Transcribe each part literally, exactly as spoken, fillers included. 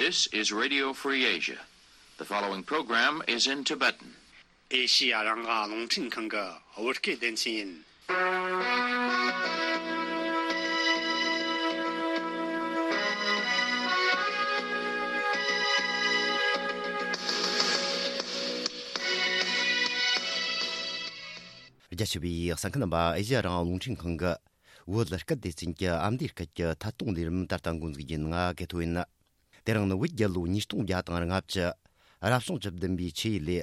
This is Radio Free Asia. The following program is in Tibetan. ཨེ་ཤི་ཡ་རང་དབང་རླུང་འཕྲིན་ཁང་གི་བོད་སྐད་སྡེ་ཚན་ཡིན། རྒྱ་ཆེ་བའི་གསན་མཁན་རྣམ་པ། ཨེ་ཤི་ཡ་རང་དབང་རླུང་འཕྲིན་ཁང་གི་བོད་སྐད་སྡེ་ཚན་གྱི་ཨ་མདོའི་སྐད་ཀྱི་ཐད་གཏོང་ལས་རིམ་ད་ལྟ་འགོ་འཛུགས་རྒྱུ་ཡིན། ང་གི་ཐོ་ཡིན། དེ་རིང་ནི་བོད་རྒྱལ་ལོ་ཉིས་སྟོང་བརྒྱ་དང་ལྔ་བཅུ། རབ་བྱུང་བཅུ་བདུན་པའི་ཆུ་ཡོས་ལོའི་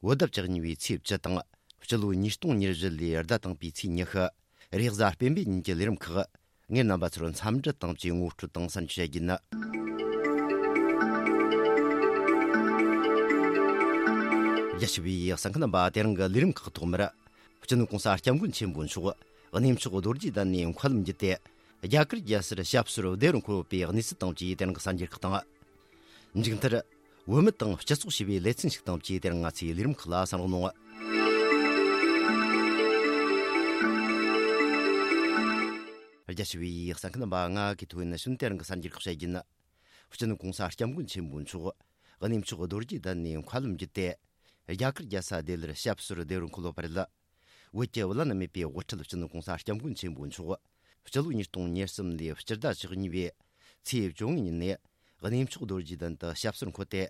བོད་ཟླ་བཅུ་གཉིས་པའི་ཚེས་བཅུ་དང་། སྤྱི་ལོ་ཉིས་སྟོང་ཉེར་བཞི་ལོའི་ཟླ་དང་པོའི་ཚེས་ཉི་ཤུ། རེས་གཟའ་སྤེན་པའི་ཉིན་གྱི་ལས་རིམ་ཁག་ངས་རྣམ་པ་ཚོར་འཚམས་འདྲི་དང་བཅས་ངོ་སྤྲོད་དང་གསན་རྒྱུ་བྱ་རྒྱུ་ཡིན། རྒྱ་ཆེ་བའི་གསན་མཁན་རྣམ་པ། དེ་རིང་གི་ལས་རིམ་ཁག་ཐོག་མར། སྤྱི་ནོར་གོང་ས་སྐྱབས་མགོན་ཆེན་པོ་མཆོག་གནས་མཆོག་རྡོ་རྗེ་གདན་ནས་མཁའ་ལམ་བརྒྱུད་དེ། རྒྱ་གར་རྒྱལ་སར་ཞབས་སོར་བདེ་བར་འཁོད་ཡོད་པའི་གནས་ཚུལ་དང་བཅས་དེ་རིང་གི་གསར་འགྱུར་ཁག་དང་། མཇུག་མཐར། བོད་མི་དང་སྤྱི་ཚོགས་ཞེས་པའི་ལེ་ཚན་ཞིག་དང་བཅས་དེ་རིང་ང་ཚོའི་ལས་རིམ་ཁག་ལ་གསན་རོགས་གནང་། རྒྱ་ཆེ་བའི་གསན་མཁན་རྣམ་པ། ང་གི་ཐོ་ཡིན། ནི་གཞུག་དེ་རིང་གི་གསར་འགྱུར་ཁག་བཤད་རྒྱུ་ཡིན། སྤྱི་ནོར་གོང་ས་སྐྱབས་མགོན་ཆེན་པོ་མཆོག་གནས་མཆོག་རྡོ་རྗེ་གདན་ནས་མཁའ་ལམ་བརྒྱུད་དེ། རྒྱ་གར་རྒྱལ་ས་ལྡི་ལིར་ཞབས་སོར་བདེ་བར་འཁོད་ཡོད་པ་རེད། བོད་ཀྱི་བླ་ན་མེད་པའི་དབུ་ཁྲིད་སྤྱི་ནོར་གོང་ས་སྐྱབས་མགོན་ཆེན་པོ་མཆོག་སྤྱི་ལོ་ཉིས་སྟོང་ཉེར་གསུམ་ལོའི་སྤྱི་ཟླ་བཅུ་གཉིས་པའི་ཚེས་བཅོ་ལྔ་ཉིན་ནས་གནས་མཆོག་རྡོ་རྗེ་གདན་དུ་ཞབས་སོར་འཁོད་དེ།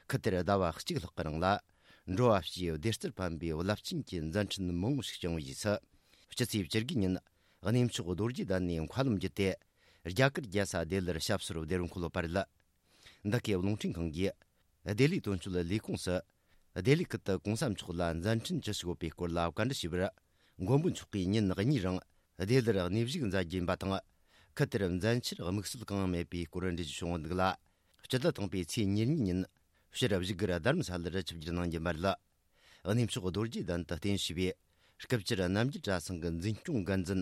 ཁུལ་དེར་ཟླ་བ་གཅིག་ལྷག་གི་རིང་ལ་འགྲོ་བ་སྤྱིའི་བདེ་རྩར་ཕན་པའི་རླབས་ཆེན་གྱི་མཛད་འཕྲིན་མང་བོ་ཞིག་བསྐྱངས་པའི་རྗེས་སུ། སྤྱི་ཚེས་བཅུ་དགུ་ཉིན་གནས་མཆོག་རྡོ་རྗེ་གདན་ནས་མཁའ་ལམ་བརྒྱུད་དེ། རྒྱ་གར་རྒྱལ་ས་ལྡི་ལིར་ཞབས་སོར་བདེ་བར་འཁོད་ཡོད་པ་རེད། འདི་གའི་རླུང་འཕྲིན་ཁང་གིས་ལྡི་ལིའི་དོན་གཅོད་ལས་ཁུངས་སུ། ལྡི་ལི་ཁུལ་དུ་གོང་ས་མཆོག་ལ་མཛད་འཕྲིན་ཅི་ཞིག་ཡོད་པའི་སྐོར་ལ་བཀའ་འདྲི་ཞུས་པར། མགོན་པོ་མཆོག་གིས་ཉིན་གཉིས་རིང་ལྡི་ལིར་གནས་བཞུགས་མཛད་རྒྱུ་ཡིན་པ་དང་། ཁུལ་དེར་མཛད་འཆར་དམིགས་བསལ་གང་ཡང་མེད་པའི་སྐོར་འགྲེལ་བརྗོད་བྱུང་ཡོད་འདུག་ལ། སྤྱི་ཟླ་དང་པོའི་ཚེས་ཉེར་གཉིས་ཉིན་ཕྱིར་བཞུགས་སྒར་རྡ་རམ་ས་ལར་ཆིབས་བསྒྱུར་གནང་རྒྱུ་ཡིན་པ་རེད། གནས་མཆོག་རྡོ་རྗེ་གདན་དུ་རྟེན་གཞི་བའི་སྐུ་བཅར་རྣམ་རྒྱལ་གྲྭ་ཚང་གི་འཛིན་སྐྱོང་འགན་འཛིན་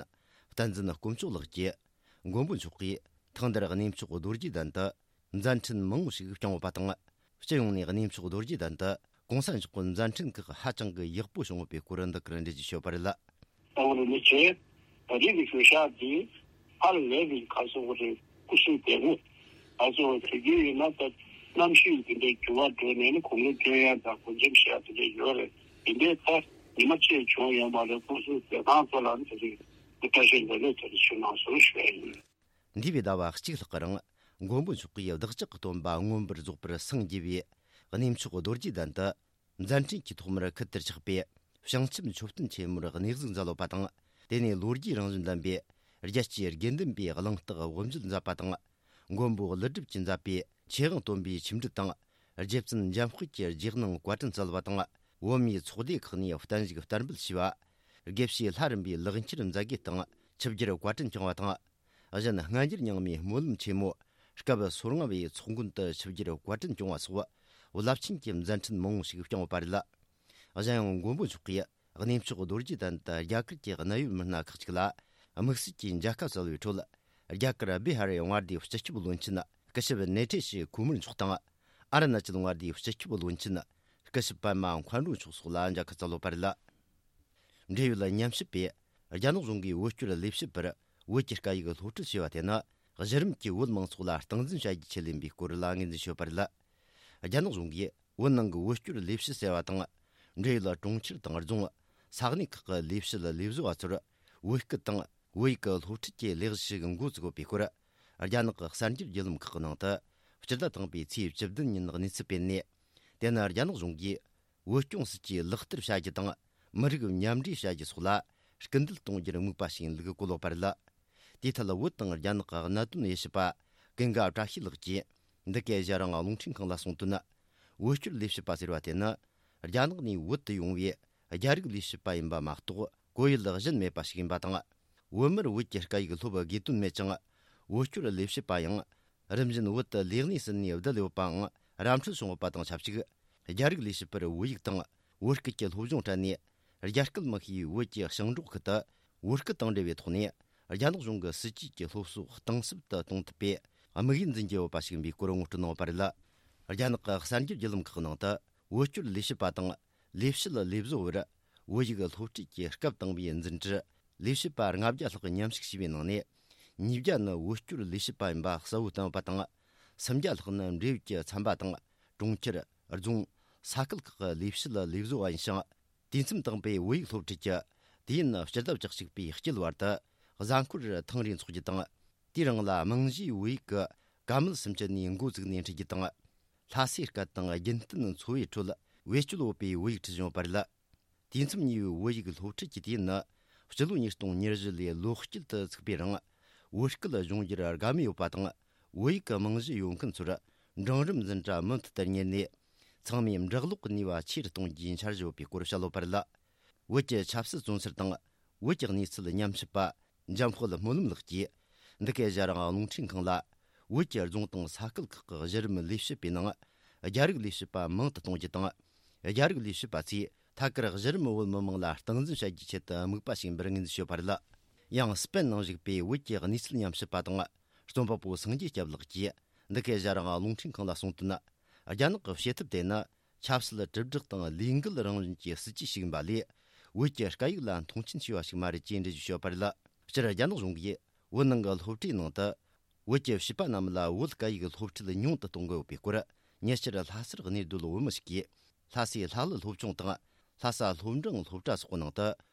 བསྟན་འཛིན་དཀོན་མཆོག་ལགས་ཀྱིས། མགོན་པོ་མཆོག་གིས་ཐེངས་འདིར་གནས་མཆོག་རྡོ་རྗེ་གདན་དུ་མཛད་འཕྲིན་མང་བོ་ཞིག་བསྐྱངས་ཡོད་པ་དང་། སྤྱི་ཡོངས་ནས་གནས་མཆོག་རྡོ་རྗེ་གདན་དུ་གོང་ས་མཆོག་གི་མཛད་འཕྲིན་ཁག་ཧ་ཅང་གི་ཡག་པོ་བྱུང་ཡོད་པའི་སྐོར་འདི་གར་འགྲེལ་བརྗོད་ཞུས་པ་རེད། ད་བར་མི་ཚེ་ད་རེས་ཀྱི་ཞོ་ཤག་འདི་ཧ་ལས་པའི་ག་སོགས་རེད། སྐུ་གཟུགས་བདེ་མོ། ང་ཚོ་དུས་རྒྱུན་ཡིན་ན་ད་གནམ་གཤིས་འདི་འདྲའི་འགྱུར་བ་འགྲོ་ནས་ནི་གོམ་རེ་སྟོན་ཡ་དང་སྒོ་འགྲེམས་བྱེད་ཡ་དེ་འདྲ་ཡོད་རེད། འདི་འདྲའི་ད་ཉི་མ་གཅིག་བྱུང་ཡོང་བ་རེད། སྐུ་གཟུགས་བདེ་ཐང་ཚོ་ལ་ནི་དེ་རིང་བཀྲ་ཤིས་ལོ་ལེགས་དེ་རིང་ཞུ་གནང་ཟེར་ཞུ་ཡ་ཡིན། འདས་པའི་ཟླ་བ་གཅིག་ལྷག་གི་རིང་མགོན་པོ་མཆོག་གིས་བདག་ཅག་གི་སྟོན་པ་མངོན་པར་རྫོགས་པར་སངས་རྒྱས་པའི་གནས་མཆོག་རྡོ་རྗེ་གདན་དུ། མཛད་འཕྲིན་གྱི་ཐོག་མར་ཁུལ་དུ་ཆགས་པའི་བྱང་ཆུབ་མཆོད་རྟེན་ཆེན་མོར་གནས་གཟིགས་མཛད་ཡོད་པ་དང་། དེ་ནས་ལོ་རྒྱུས་རང་བཞིན་ལྡན་པའི་རྒྱལ་སྤྱིའི་དགེ་འདུན་པའི་གླེང་སྟེགས་དབུ་འབྱེད་མཛད་པ་དང་། མགོན་པོ་ཀླུ་སྒྲུབ་ཀྱིས་མཛད་པའི་ཆོས་དབྱིངས་སྟོན་པའི་ཆིབས་འགྲིལ་དང་། རྗེ་བཙུན་འཇམ་དཔལ་གྱི་རྗེས་གནང་བཀའ་དྲིན་སྩལ་བ་དང་། བོད་མིའི་ཚོགས་སྡེ་ཁག་ནས་བརྟན་བཞུགས་བསྟར་འབུལ་ཞུས་པ། དགེ་བཤེས་ལྷ་རམས་པའི་ལེགས་འཁྱེར་མཛད་དགེ་དང་ཆིབས་བསྒྱུར་བཀའ་དྲིན་བསྐྱངས་པ་དང་། གཞན་སྔ་འགྱུར་རྙིང་མའི་སྨོན་ལམ་ཆེན་མོ་སྐབས་སོ་ལྔ་བའི་ཚོགས་མགོན་དུ་ཆིབས་བསྒྱུར་བཀའ་དྲིན་བསྐྱངས་པ་སོགས་རླབས་ཆེན་གྱི་མཛད་འཕྲིན་མང་བོ་ཞིག་བསྐྱངས་ཡོད་པ་རེད། གཞན་ཡང་མགོན་པོ་མཆོག་གིས་གནས་མཆོག་རྡོ་རྗེ་གདན་དུ་རྒྱ་གར་གྱི་གནད་ཡོད་མི་སྣ་ཁག་ཅིག་ལ་དམིགས་བསལ་གྱིས་མཇལ་ཁ་སྩལ་བའི་ཁྲོད། རྒྱ་གར་བི་ཧར་མངའ་སྡེའི་སྤྱི་ཁྱབ་བློན་ཆེན་སྐུ་ཞབས་ནེ་ཐེ་ཤི་ཁོ་མར་མཆོག་དང་། ཨ་རུ་ན་ཅལ་མངའ་སྡེའི་སྤྱི་ཁྱབ་བློན་ཆེན་སྐུ་ཞབས་པད་མ་མཁའ་འགྲོ་མཆོག་སོགས་ལ་མཇལ་ཁ་སྩལ་ཡོད་པ་རེད། འབྲེལ་ཡོད་ཉམས་ཞིབ་པས། རྒྱ་ནག་གཞུང་གིས་བོད་སྐྱོར་ལས་བྱེད་པར་བོད་ཀྱི་སྐད་ཡིག་སློབ་ཁྲིད་བྱས་པ་དེ་ནི། གཞི་རིམ་གྱི་བོད་མང་ཚོགས་ལ་སྟངས་འཛིན་བྱ་རྒྱུའི་ཆེད་ལས་ཡིན་པའི་སྐོར་ལ་ངོས་འཛིན་བྱས་ཡོད་པ་རེད། རྒྱ་ནག་གཞུང་གིས་བོད་ནང་གི་བོད་སྐྱོར་ལས་བྱེད་ཟེར་བ་དང་། འབྲེལ་ཡོད་གྲོང་ཁྱེར་དང་རྫོང་། ས་གནས་ཁག་གི་ལས་བྱེད་ལས་བཟོ་བ་ཚོར་བོད་སྐད་དང་བོད་ཡིག་གི་སློབ་ཁྲིད་ཀྱི་ལས་གཞི་ཞིག་འགོ་བཙུགས་ཡོད་པའི་སྐོར། རྒྱ་ནག་གི་གསར་འགྱུར་བརྒྱུད་ལམ་ཁག་གི་ནང་དུ། སྤྱི་ཟླ་དང་པོའི་ཚེས་བཅུ་བདུན་ཉིན་གནས་ཚུལ་སྤེལ་ནས། དེ་ནི་རྒྱ་ནག་གཞུང་གིས། བོད་སྐྱོང་སྲིད་ཇུས་ལག་བསྟར་བྱ་རྒྱུ་དང་། མི་རིགས་མཉམ་འདྲེས་བྱ་རྒྱུ་སོགས་ལ་སྐུལ་འདེད་གཏོང་རྒྱུར་དམིགས་པ་ཞིག་ཡིན་ལུགས་གོ་ལོག་པ་རེད། དེའི་ཐད་བོད་དང་རྒྱ་ནག་གི་གནད་དོན་དབྱེ་ཞིབ་པ་ཀུན་དགའ་བཀྲ་ཤིས་ལགས་ཀྱིས་འདི་གའི་གཞན་རང་རླུང་འཕྲིན་ཁང་ལ་གསུངས་དོན། བོད་སྐྱོར་ལས་བྱེད་པ་ཟེར་བ་དེ་ནི་རྒྱ་ནག་ནས་བོད་དུ་ཡོང་བའི་རྒྱ་རིགས་ལས་བྱེད་པ་ཡིན་པ་མ་གཏོགས་གོ་ཡུལ་གཞན་མེད་པ་ཞིག་ཡིན་པ་དང་། བོད་མིར་བོད་ཀྱི་སྐད་ཡིག་སློབ་དགོས་དོན་མེད་ཅིང་། བོད་སྐྱོར་ལས་བྱེད་པ་ཡང་། རིམ་བཞིན་བོད་དུ་ལས་གནས་ཟིན་ནས་བསྡད་ཡོད་པའང་ར་འཕྲོད་བྱུང་ཡོད་པ་དང་ཆབས་ཅིག་རྒྱ་རིགས་ལས་བྱེད་པར་བོད་ཡིག་དང་བོད་སྐད་ཀྱི་སློབ་སྦྱོང་སྤྲད་ནས། རྒྱ་སྐད་མི་ཤེས་བོད་ཀྱི་ཞིང་འབྲོག་ཁུལ་དུ་བོད་སྐད་དང་འབྲེལ་བའི་ཐོག་ནས་རྒྱ་ནག་གཞུང་གི་སྲིད་ཇུས་ཀྱི་སློབ་གསོ་གཏིང་ཟབ་ཏུ་གཏོང་ཐུབ་པའི་དམིགས་ཡུལ་འཛིན་གྱི་ཡོད་པ་ཞིག་ཡིན་པའི་སྐོར་ངོ་སྤྲོད་གནང་ཡོད་པ་རེད། རྒྱ་ནག་གི་གསར་འགྱུར་བརྒྱུད་ལམ་ཁག་ནང་དུ་བོད་སྐྱོར་ལས་བྱེད་པ་དང་ལས་བྱེད་ལས་བཟོ་བར་བོད་ཡིག་སློབ་ཁྲིད་ཀྱི་སྐབས་དང་པོའི་འཛིན་གྲྭར། ལས་བྱེད་པ་ལྔ་བརྒྱ་ལྷག་མཉམ་ཞུགས་བྱས་པའི་ནང་ནས། ཉིས་བརྒྱ་ནི་བོད་སྐྱོར་ལས་བྱེད་པ་ཡིན་པ་གསལ་བོ་བསྟན་ཡོད་པ་དང་། སུམ་བརྒྱ་ལྷག་ནི་འབྲེལ་ཡོད་ཀྱི་ཚན་པ་དང་གྲོང་ཁྱེར། རྫོང་། ས་ཁུལ་ཁག་གི་ལས་བྱེད་ལས་བཟོ་བ་ཡིན་ཞིང་། དུས་མཚམས་དང་པོའི་བོད་ཡིག་སློབ་ཁྲིད་ཀྱི་དུས་ཡུན་སྤྱི་ཟླ་བཅུ་གཅིག་པའི་དཀྱིལ་བར་དུ་གཟའ་འཁོར་ཐེངས་རེ་འཚོགས་རྒྱུ་དང་། དེའི་རིང་ལ་རྨང་གཞིའི་བོད་ཡིག་གི་བཀའ་མོལ་སུམ་ཅུ་ནས་འགོ་བཙུགས་ནས་འཁྲིད་རྒྱུ་དང་། ལྷ་སའི་སྐད་དང་རྒྱུན་གཏན་འཚོ་བའི་ཁྲོད་བེད་སྤྱོད་ཡོད་པའི་བོད་ཡིག་ཁྲིད་བྱུང་བ་རེད། དུས་མཚམས་གཉིས་པའི་བོད་ཡིག་སློབ་ཁྲིད་ཀྱི་དུས་ཡུན་ནི་སྤྱི་ལོ་ཉིས་སྟོང་ཉེར་བཞི་ལོའི་ལོ་དཀྱིལ་དུ་ཚུགས་པའི་རིང་བོད་སྐད་སྦྱོང་རྒྱུར་དགའ་མོས་ཡོད་པ་དང་། བོད་ཡིག་གི་རྨང་གཞི་ཡོད་མཁན་ཚོར་འབྲིང་རིམ་འཛིན་གྲྭ་མུ་མཐུད་དུ་གཉེར་ནས། ཚང་མས་འབྲི་ཀློག་གི་ནུས་པ་ཆེ་རུ་གཏོང་རྒྱུའི་འཆར་གཞི་ཡོད་པའི་སྐོར་བཤད་ཡོད་པ་རེད། བོད་ཀྱི་ཆབ་སྲིད་བཙོན་ཟུར་དང་བོད་ཀྱི་གནས་ཚུལ་ཉམས་ཞིབ་པ་འཇམ་དཔལ་སྨོན་ལམ་ལགས་ཀྱིས། འདི་གའི་ཞྭ་རིང་རླུང་འཕྲིན་ཁང་ལ། བོད་ཀྱི་རྫོང་དང་ས་ཁུལ་ཁག་གི་གཞི་རིམ་ལས་བྱེད་པའི་ནང་རྒྱ་རིགས་ལས་བྱེད་པ་མང་དུ་གཏོང་རྒྱུ་དང་། རྒྱ་རིགས་ལས་བྱེད་པ་ཚོས་ཐད་ཀར་གཞི་རིམ་བོད་མི་མང་ལ་སྟངས་འཛིན་བྱ་རྒྱུའི་ཆེད་དུ་དམིགས་པ་བྱས་པར་ངོས་འཛིན་ཞུས་པ་རེད། ཡང་སྤེན་ནང་བཞུགས་པའི་བོད་ཀྱི་གནས་ཚུལ་ཉམས་ཞིབ་པ་དང་རྩོམ་པ་པོ་སངས་རྒྱས་སྐྱབས་ལགས་ཀྱིས། འདི་གའི་ཞྭ་རིང་རླུང་འཕྲིན་ཁང་ལ་གསུངས་དོན། རྒྱ་ནག་གི་བྱེད་ཐབས་དེ་ནི་ཆབ་སྲིད་དྲིལ་བསྒྲགས་དང་ལས་འགུལ་རང་བཞིན་གྱི་སྲིད་ཇུས་ཤིག་ཡིན་པ་ལས། བོད་ཀྱི་སྐད་ཡིག་ལ་མཐོང་ཆེན་བྱས་པ་ཞིག་མ་རེད་ཅེས་འགྲེལ་བརྗོད་ཞུས་པ་རེད། སྤྱིར་རྒྱ་ནག་གཞུང་གིས་བོད་ནང་གི་སློབ་གྲྭའི་ནང་དུ་བོད་ཀྱི་བྱིས་པ་རྣམས་ལ་བོད་སྐད་ཡིག་སློབ་ཁྲིད་ཉུང་དུ་གཏོང་དགོས་ཡོད་པའི་སྐོར། ཉེ་ཆར་ལྷ་སར་གནས་སྡོད་བོད་མི་ཞིག་གིས་ལྷ་སའི་ལྷ་གླུ་སློབ་ཆུང་དང་ལྷ་ས་སློབ་འབྲིང་སློབ་གྲྭ་སོགས་ནང་དུ་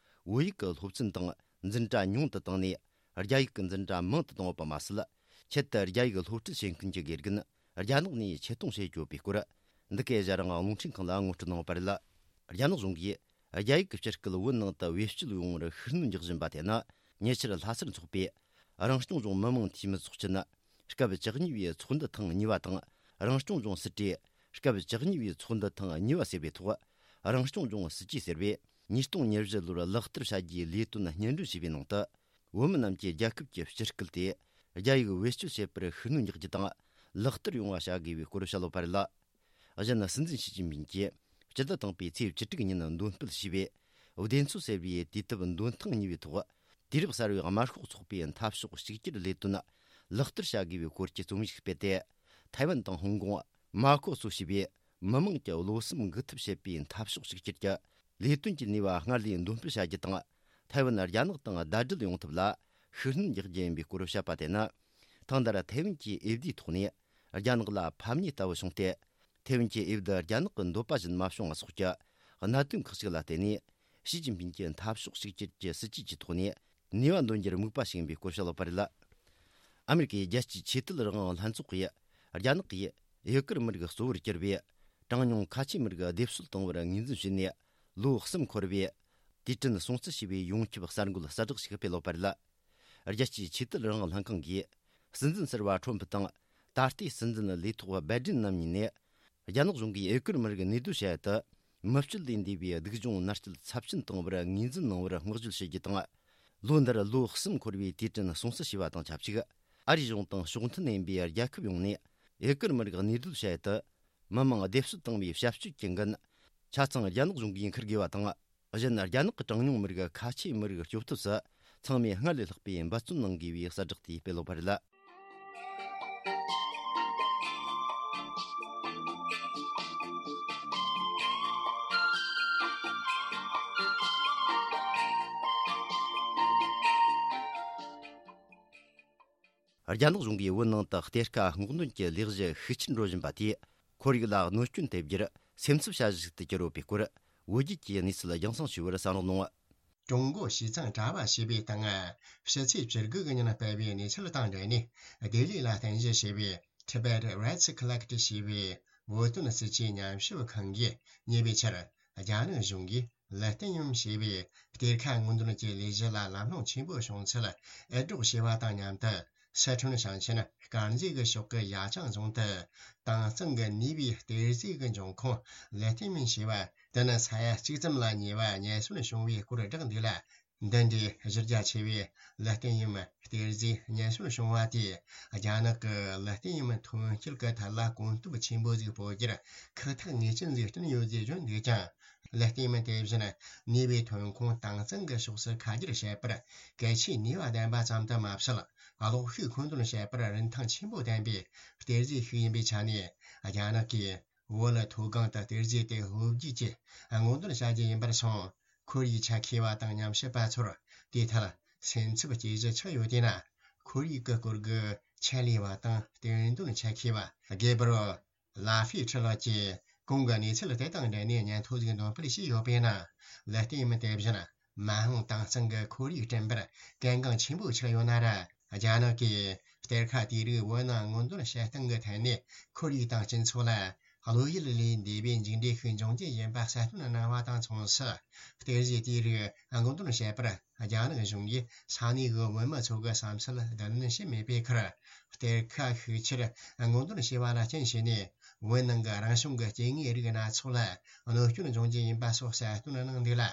བོད་ཡིག་གི་སློབ་ཚན་དང་འཛིན་གྲྭ་ཉུང་དུ་བཏང་ནས། རྒྱ་ཡིག་གི་འཛིན་གྲྭ་མང་དུ་བཏང་ཡོད་པ་མ་ཟད། ཆེད་དུ་རྒྱ་ཡིག་སློབ་ཁྲིད་བྱེད་མཁན་གྱི་དགེ་རྒན་རྒྱ་ནག་ནས་ཆེད་གཏོང་བྱེད་ཡོད་པའི་སྐོར། འདི་གའི་ཞྭ་རིང་རླུང་འཕྲིན་ཁང་ལ་ངོ་སྤྲོད་གནང་ཡོད་པ་རེད། རྒྱ་ནག་གཞུང་གིས་རྒྱ་ཡིག་གི་སྤྱི་སྐད་བོད་ནང་དུ་བེད་སྤྱོད་ཡོང་བར་ཤུགས་སྣོན་རྒྱག་བཞིན་པ་དེ་ནི། ཉེ་ཆར་ལྷ་སར་འཚོགས་པའི་རང་སྐྱོང་ལྗོངས་མི་དམངས་འཐུས་མི་ཚོགས་ཆེན་སྐབས་བཅུ་གཉིས་པའི་ཚོགས་འདུ་ཐེངས་གཉིས་པ་དང་། རང་སྐྱོང་ལྗོངས་སྲིད་གྲོས་སྐབས་བཅུ་གཉིས་པའི་ཚོགས་འདུ་ཐེངས་གཉིས་པ་ཟེར་བའི་ཐོག་རང་སྐྱོང་ལྗོངས་སྲིད་ཇུས་ཟེར་བས་ཉིས་སྟོང་ཉེར་བཞི་ལོར་ལག་བསྟར་བྱ་རྒྱུའི་ལས་དོན་སྙན་སྒྲོན་ཞུས་པའི་ནང་དུ། བོད་མི་རྣམས་ཀྱིས་རྒྱལ་ཁབ་ཀྱི་སྤྱི་སྐད་དེ་རྒྱ་ཡིག་བེད་སྤྱོད་བྱེད་པར་ཤུགས་སྣོན་རྒྱག་རྒྱུ་དང་ལག་བསྟར་ཡོང་བ་བྱ་དགོས་པའི་སྐོར་བཤད་ཡོད་པ་རེད། གཞན། སྲིད་འཛིན་ཞི་ཅིན་ཕིང་གིས་སྤྱི་ཟླ་དང་པོའི་ཚེས་བཅུ་དྲུག་ཉིན་འདོན་སྤེལ་བྱས་པའི་བདེན་འཚོལ་ཟེར་བའི་དུས་དེབ་འདོན་ཐེངས་གཉིས་པའི་ཐོག་དུས་རབས་གསར་བའི་དམར་ཤོག་ཚོགས་པའི་འཐབ་ཕྱོགས་གཅིག་གྱུར་ལས་དོན་ལག་བསྟར་བྱ་དགོས་པའི་སྐོར་གྱི་རྩོམ་ཡིག་སྤེལ་ཏེ། ཐའེ་ཝན་དང་ཧོང་ཀོང་། མ་ཁོ་སོ་ཞེས་པའི་མི་དམངས་ཀྱི་བློ་སེམས་འགུག་ཐབས་བྱེད་པའི་འཐབ་ཕྱོགས་གཅིག་གྱུར་གྱི་ལས་དོན་གྱི་ནུས་པ་སྔར་ལས་འདོན་སྤེལ་བྱ་རྒྱུ་དང་། ཐའེ་ཝན་རྒྱ་ནག་དང་ཟླ་སྒྲིལ་ཡོང་ཐབས་ལ་ཤུགས་སྣོན་རྒྱག་རྒྱུ་ཡིན་པའི་སྐོར་བཤད་པ་དེ་ནི། ཐེངས་འདིར་ཐའེ་ཝན་གྱི་འོས་བསྡུའི་ཐོག་ནས་རྒྱ་ནག་ལ་ཕམ་ཉེས་ལྟ་བུ་བྱུང་སྟེ། ཐའེ་ཝན་གྱི་འོས་བསྡུ་རྒྱ་ནག་གི་འདོད་པ་བཞིན་མ་བྱུང་བ་སོགས་ཀྱི་གནད་དོན་ཁག་ཅིག་ལ་བརྟེན་ནས། ཞི་ཅིན་ཕིང་གིས་འཐབ་ཕྱོགས་གཅིག་གྱུར་གྱི་སྲིད་ཇུས་ཀྱི་ཐོག་ནས་ནུས་པ་འདོན་རྒྱུར་དམིགས་པ་བྱེད་པའི་སྐོར་བཤད་ཡོད་པ་རེད། ཨ་མེ་རི་ཀའི་རྒྱལ་སྤྱིའི་ཆོས་དད་རང་དབང་ལྷན་ཚོགས་ཀྱིས་རྒྱ་ནག་གིས་ཨེ་ཀར་མི་རིགས་གཙོ་བོར་གྱུར་པའི་གྲངས་ཉུང་ཁ་ཆེའི་མི་རིགས་སྡེབ་གསོད་གཏོང་བར་ངོས་འཛིན་བྱས་ནས། ལོ་གསུམ་འཁོར་བའི་དུས་དྲན་སྲུང་བརྩི་ཞེས་པའི་ཡོངས་ཁྱབ་གསར་འགོད་གསལ་བསྒྲགས་ཤིག་སྤེལ་ཡོད་པ་རེད། རྒྱལ་སྤྱིའི་ཆོས་དད་རང་དབང་ལྷན་ཁང་གིས། སྲིད་འཛིན་ཟུར་པ་ཁྲོམ་ཕུ་དང་། ད་ལྟའི་སྲིད་འཛིན་ལས་ཐོག་བྷའི་ཌེན་རྣམ་གཉིས་ནས། རྒྱ་ནག་གཞུང་གིས་ཨེ་ཀར་མི་རིགས་གནས་སྡོད་བྱ་ཡུལ་དུ། མི་སྤྱོད་ལས་འདས་པའི་སྡུག་སྦྱོང་མནར་གཅོད་ཚབས་ཆེན་བཏང་བར་ངོས་འཛིན་གནང་བར་བསྔགས་བརྗོད་བྱེད་རྒྱུ་དང་། ལོ་འདིར་ལོ་གསུམ་འཁོར་བའི་དུས་དྲན་སྲུང་བརྩི་ཞེས་པ་དང་ཆབས་ཅིག་ཨ་རིའི་གཞུང་དང་ཕྱོགས་མཐུན་ཡིན་པའི་རྒྱལ་ཁབ་ཡོངས་ནས། ཨེ་ཀར་མི་རིགས་གནས་སྡོད་བྱ་ཡུལ་དུ། མི་མང་སྡེབ་གསོད་བཏང་བའི་བྱ་སྤྱོད་ཀྱི་འགན། ཆ་ཚང་རྒྱ་ནག་གཞུང་གིས་འཁུར་དགོས་པ་དང་། གཞན། རྒྱ་ནག་གི་གྲངས་ཉུང་མི་རིགས་ཁ་ཆེའི་མི་རིགས་སྐྱོབ་ཐབས་སུ་ཚང་མས་སྔར་ལས་ལྷག་པའི་འབད་བརྩོན་གནང་དགོས་པའི་གསལ་བསྒྲགས་དེ་སྤེལ་ཡོད་པ་རེད། རྒྱ་ནག་གཞུང་གིས་བོད་ནང་དུ་གཏེར་ཁ་སྔོག་འདོན་གྱི་ལས་གཞི་ཤུགས་ཆེར་འགྲོ་བཞིན་པ་དེས། ཁོར་ཡུག་ལ་གནོད་སྐྱོན་ཐེབས་རྒྱུར་སེམས་འཚབ་བྱ་གཞི་ཞིག་ཏུ་གྱུར་ཡོད་པའི་སྐོར། བོད་བརྒྱུད་ཀྱིས་གནས་ཚུལ་རྒྱང་སྲིང་ཞུ་བར་གསན་རོགས་གནང་། ཀྲུང་གོ་ཞི་ཙང་དྲ་བ་ཞེས་པའི་སྟེང་། ཕྱི་ཚེས་བཅུ་དགུ་གི་ཉིན་སྤེལ་བའི་གནས་ཚུལ་དང་འབྲེལ་ནས། ལྡི་ལི་ལ་རྟེན་གཞི་བྱས་པའི་Tibet Rights Collective ཞེས་པའི་བོད་དོན་སྲིད་ཇུས་ཉམས་ཞིབ་ཁང་གིས་ཉེ་བའི་ཆར། རྒྱ་ནག་གཞུང་གིས་ལི་ཏི་ཡུམ་ཞེས་པའི་གཏེར་ཁ་སྔོག་འདོན་གྱི་ལས་གཞི་ལ་ལམ་ལྷོང་ཆེན་པོ་བྱུང་ཚུལ་འུར་སྒྲོག་བྱས་པ་དང་མཉམ་དུ། སི་ཁྲོན་ཞིང་ཆེན་དཀར་མཛེས་ཀྱི་ཕྱོགས་ཀྱི་ཡ་ཅང་རྫོང་དུ། དྭངས་གཙང་གི་ནུས་པའི་གཏེར་རྫས་ཀྱི་འབྱུང་ཁུངས་ལི་ཏི་ཡུམ་ཞེས་པ་དེ་ནི་ས་ཡ་གཅིག་ཙམ་ལ་ཉེ་བ་རྙེད་སོན་བྱུང་བའི་སྐོར་བསྒྲགས་འདུག་ལ། འདི་འདྲའི་གཞི་རྒྱ་ཆེ་བའི་ལི་ཏི་ཡུམ་གཏེར་རྫས་རྙེད་སོན་བྱུང་བ་དེས། རྒྱ་ནག་གི་ལི་ཏི་ཡུམ་ཐོན་སྐྱེད་ཀྱི་ཐད་ལ་གོམ་སྟབས་ཆེན་པོ་ཞིག་སྤོ་རྒྱུར་ཁག་ཐེག་ངེས་ཅན་ཞིག་བསྐྲུན་ཡོད་ཅེས་བརྗོད་འདུག་ཀྱང་། ལི་ཏི་ཡུམ་དེ་བཞིན་ནུས་པའི་ཐོན་ཁུངས་དྭངས་གཙང་གི་ཕྱོགས་སུ་ཁ་སྒྱུར་བྱེད་པར་གལ་ཆེའི་ནུས་པ་ལྡན་པ་ཙམ་དུ་མ་ཟད། གློག་ཤུགས་མཁོ་འདོན་བྱེད་པར་རིན་ཐང་ཆེན་པོ་ལྡན་པའི་གཏེར་རྫས་ཤིག་ཡིན་པའི་ཆ་ནས། རྒྱ་ནག་གིས་བོད་ལ་མཐོ་སྒང་དུ་གཏེར་རྫས་དེ་ལྷོ་རྒྱུད་ཀྱི་སྔོག་འདོན་བྱ་རྒྱུ་ཡིན་པར་སོང་། ཁོར་ཡུག་ཆ་མཁས་པ་དང་ཉམས་ཞིབ་པ་ཚོར་དེའི་ཐད་སེམས་འཚབ་སྐྱེ་གཞི་ཆགས་ཡོད་དེས་ན། ཁོར་ཡུག་གི་སྐོར་གྱི་ ཆེད་ལས་པ་དང་། བསྟན་དོན་ཆེད་མཁས་པ་གེ་བྷི་རི་ཨེལ་ལ་ཧྥི་ཁྲི་ལགས་ཀྱིས་གོང་གི་གནས་ཚུལ་དེ་དང་འབྲེལ་ནས་སྙན་ཐོ་ཞིག་འདོན་སྤེལ་བྱས་ཡོད་པས་ན། ལ་ལྟད་མོ་དེ་བཞིན་མ་འོངས་དྭངས་གཙང་གི་ཁོར་ཡུག་བསྐྲུན་པར་གལ་འགངས་ཆེན་པོ་ཆགས་ཡོད་ན་ར། རྒྱ་ནག་གིས་གཏེར་ཁ་དེ་རིགས་བོད་ནང་སྔོག་འདོན་བྱེད་སྟངས་ཀྱི་ཐད་ནས་ཁོར་ཡུག་དང་སྤྱི་ཚོགས་ལ་བློ་ཡུལ་ལས་འདས་པའི་མཇུག་འབྲས་ཤིག་འབྱུང་རྒྱུ་ཡིན་པ་གསལ་སྟོན་གནང་བ་དང་མཚུངས་སུ། གཏེར་གཞི་དེའི་རིགས་སྔོག་འདོན་བྱེད་པར་རྒྱ་ནག་གཞུང་གིས་ས་གནས་ཀྱི་བོད་མི་ཚོ་གི་བསམ་ཚུལ་བསྡུ་ལེན་བྱས་མེད་པའི་ཁར། གཏེར་ཁ་ཤུགས་ཆེར་སྔོག་འདོན་བྱས་པ་ལ་རྐྱེན་བྱས་ནས། བོད་ནང་གི་རང་བྱུང་གི་སྐྱེ་དངོས་རིགས་སྣ་ཚོགས་ལ་གནོད་སྐྱོན་འབྱུང་རྒྱུ་ཡིན་པ་སོགས་གསལ་སྟོན་གནང་འདུག་ལ།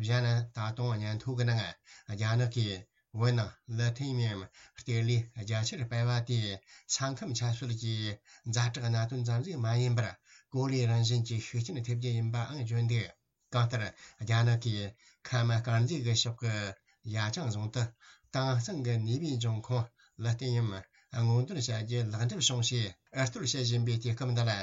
གཞན་ད་དུང་སྙན་ཐོ་གི་ནང་རྒྱ་ནག་གིས། བོད་ནང་ལི་ཐི་ཡམ་གཏེར་ལས་རྒྱ་ཆེར་སྤེལ་བ་དེ་ས་ཁམས་ཆབ་སྲིད་ཀྱི་ཛ་དྲག་གནད་དོན་ཙམ་ཞིག་མ་ཡིན་པར། གོ་ལའི་རང་བཞིན་གྱི་ཤུགས་རྐྱེན་ཐེབས་རྒྱུ་ཡིན་པའང་བརྗོད་འདུག་གང་ལྟར། རྒྱ་ནག་གིས་ཁམས་དཀར་མཛེས་ཀྱི་ཕྱོགས་ཀྱི་ཡ་ཅང་རྫོང་དུ་དྭངས་གཙང་གི་ནུས་པའི་འབྱུང་ཁུངས་ལི་ཐི་ཡམ་སྔོག་འདོན་བྱ་རྒྱུ་ལེགས་འགྲུབ་བྱུང་ཞེས་ཨར་གཏོར་བྱེད་བཞིན་པའི་དུས་སྐབས་འདི་ལ།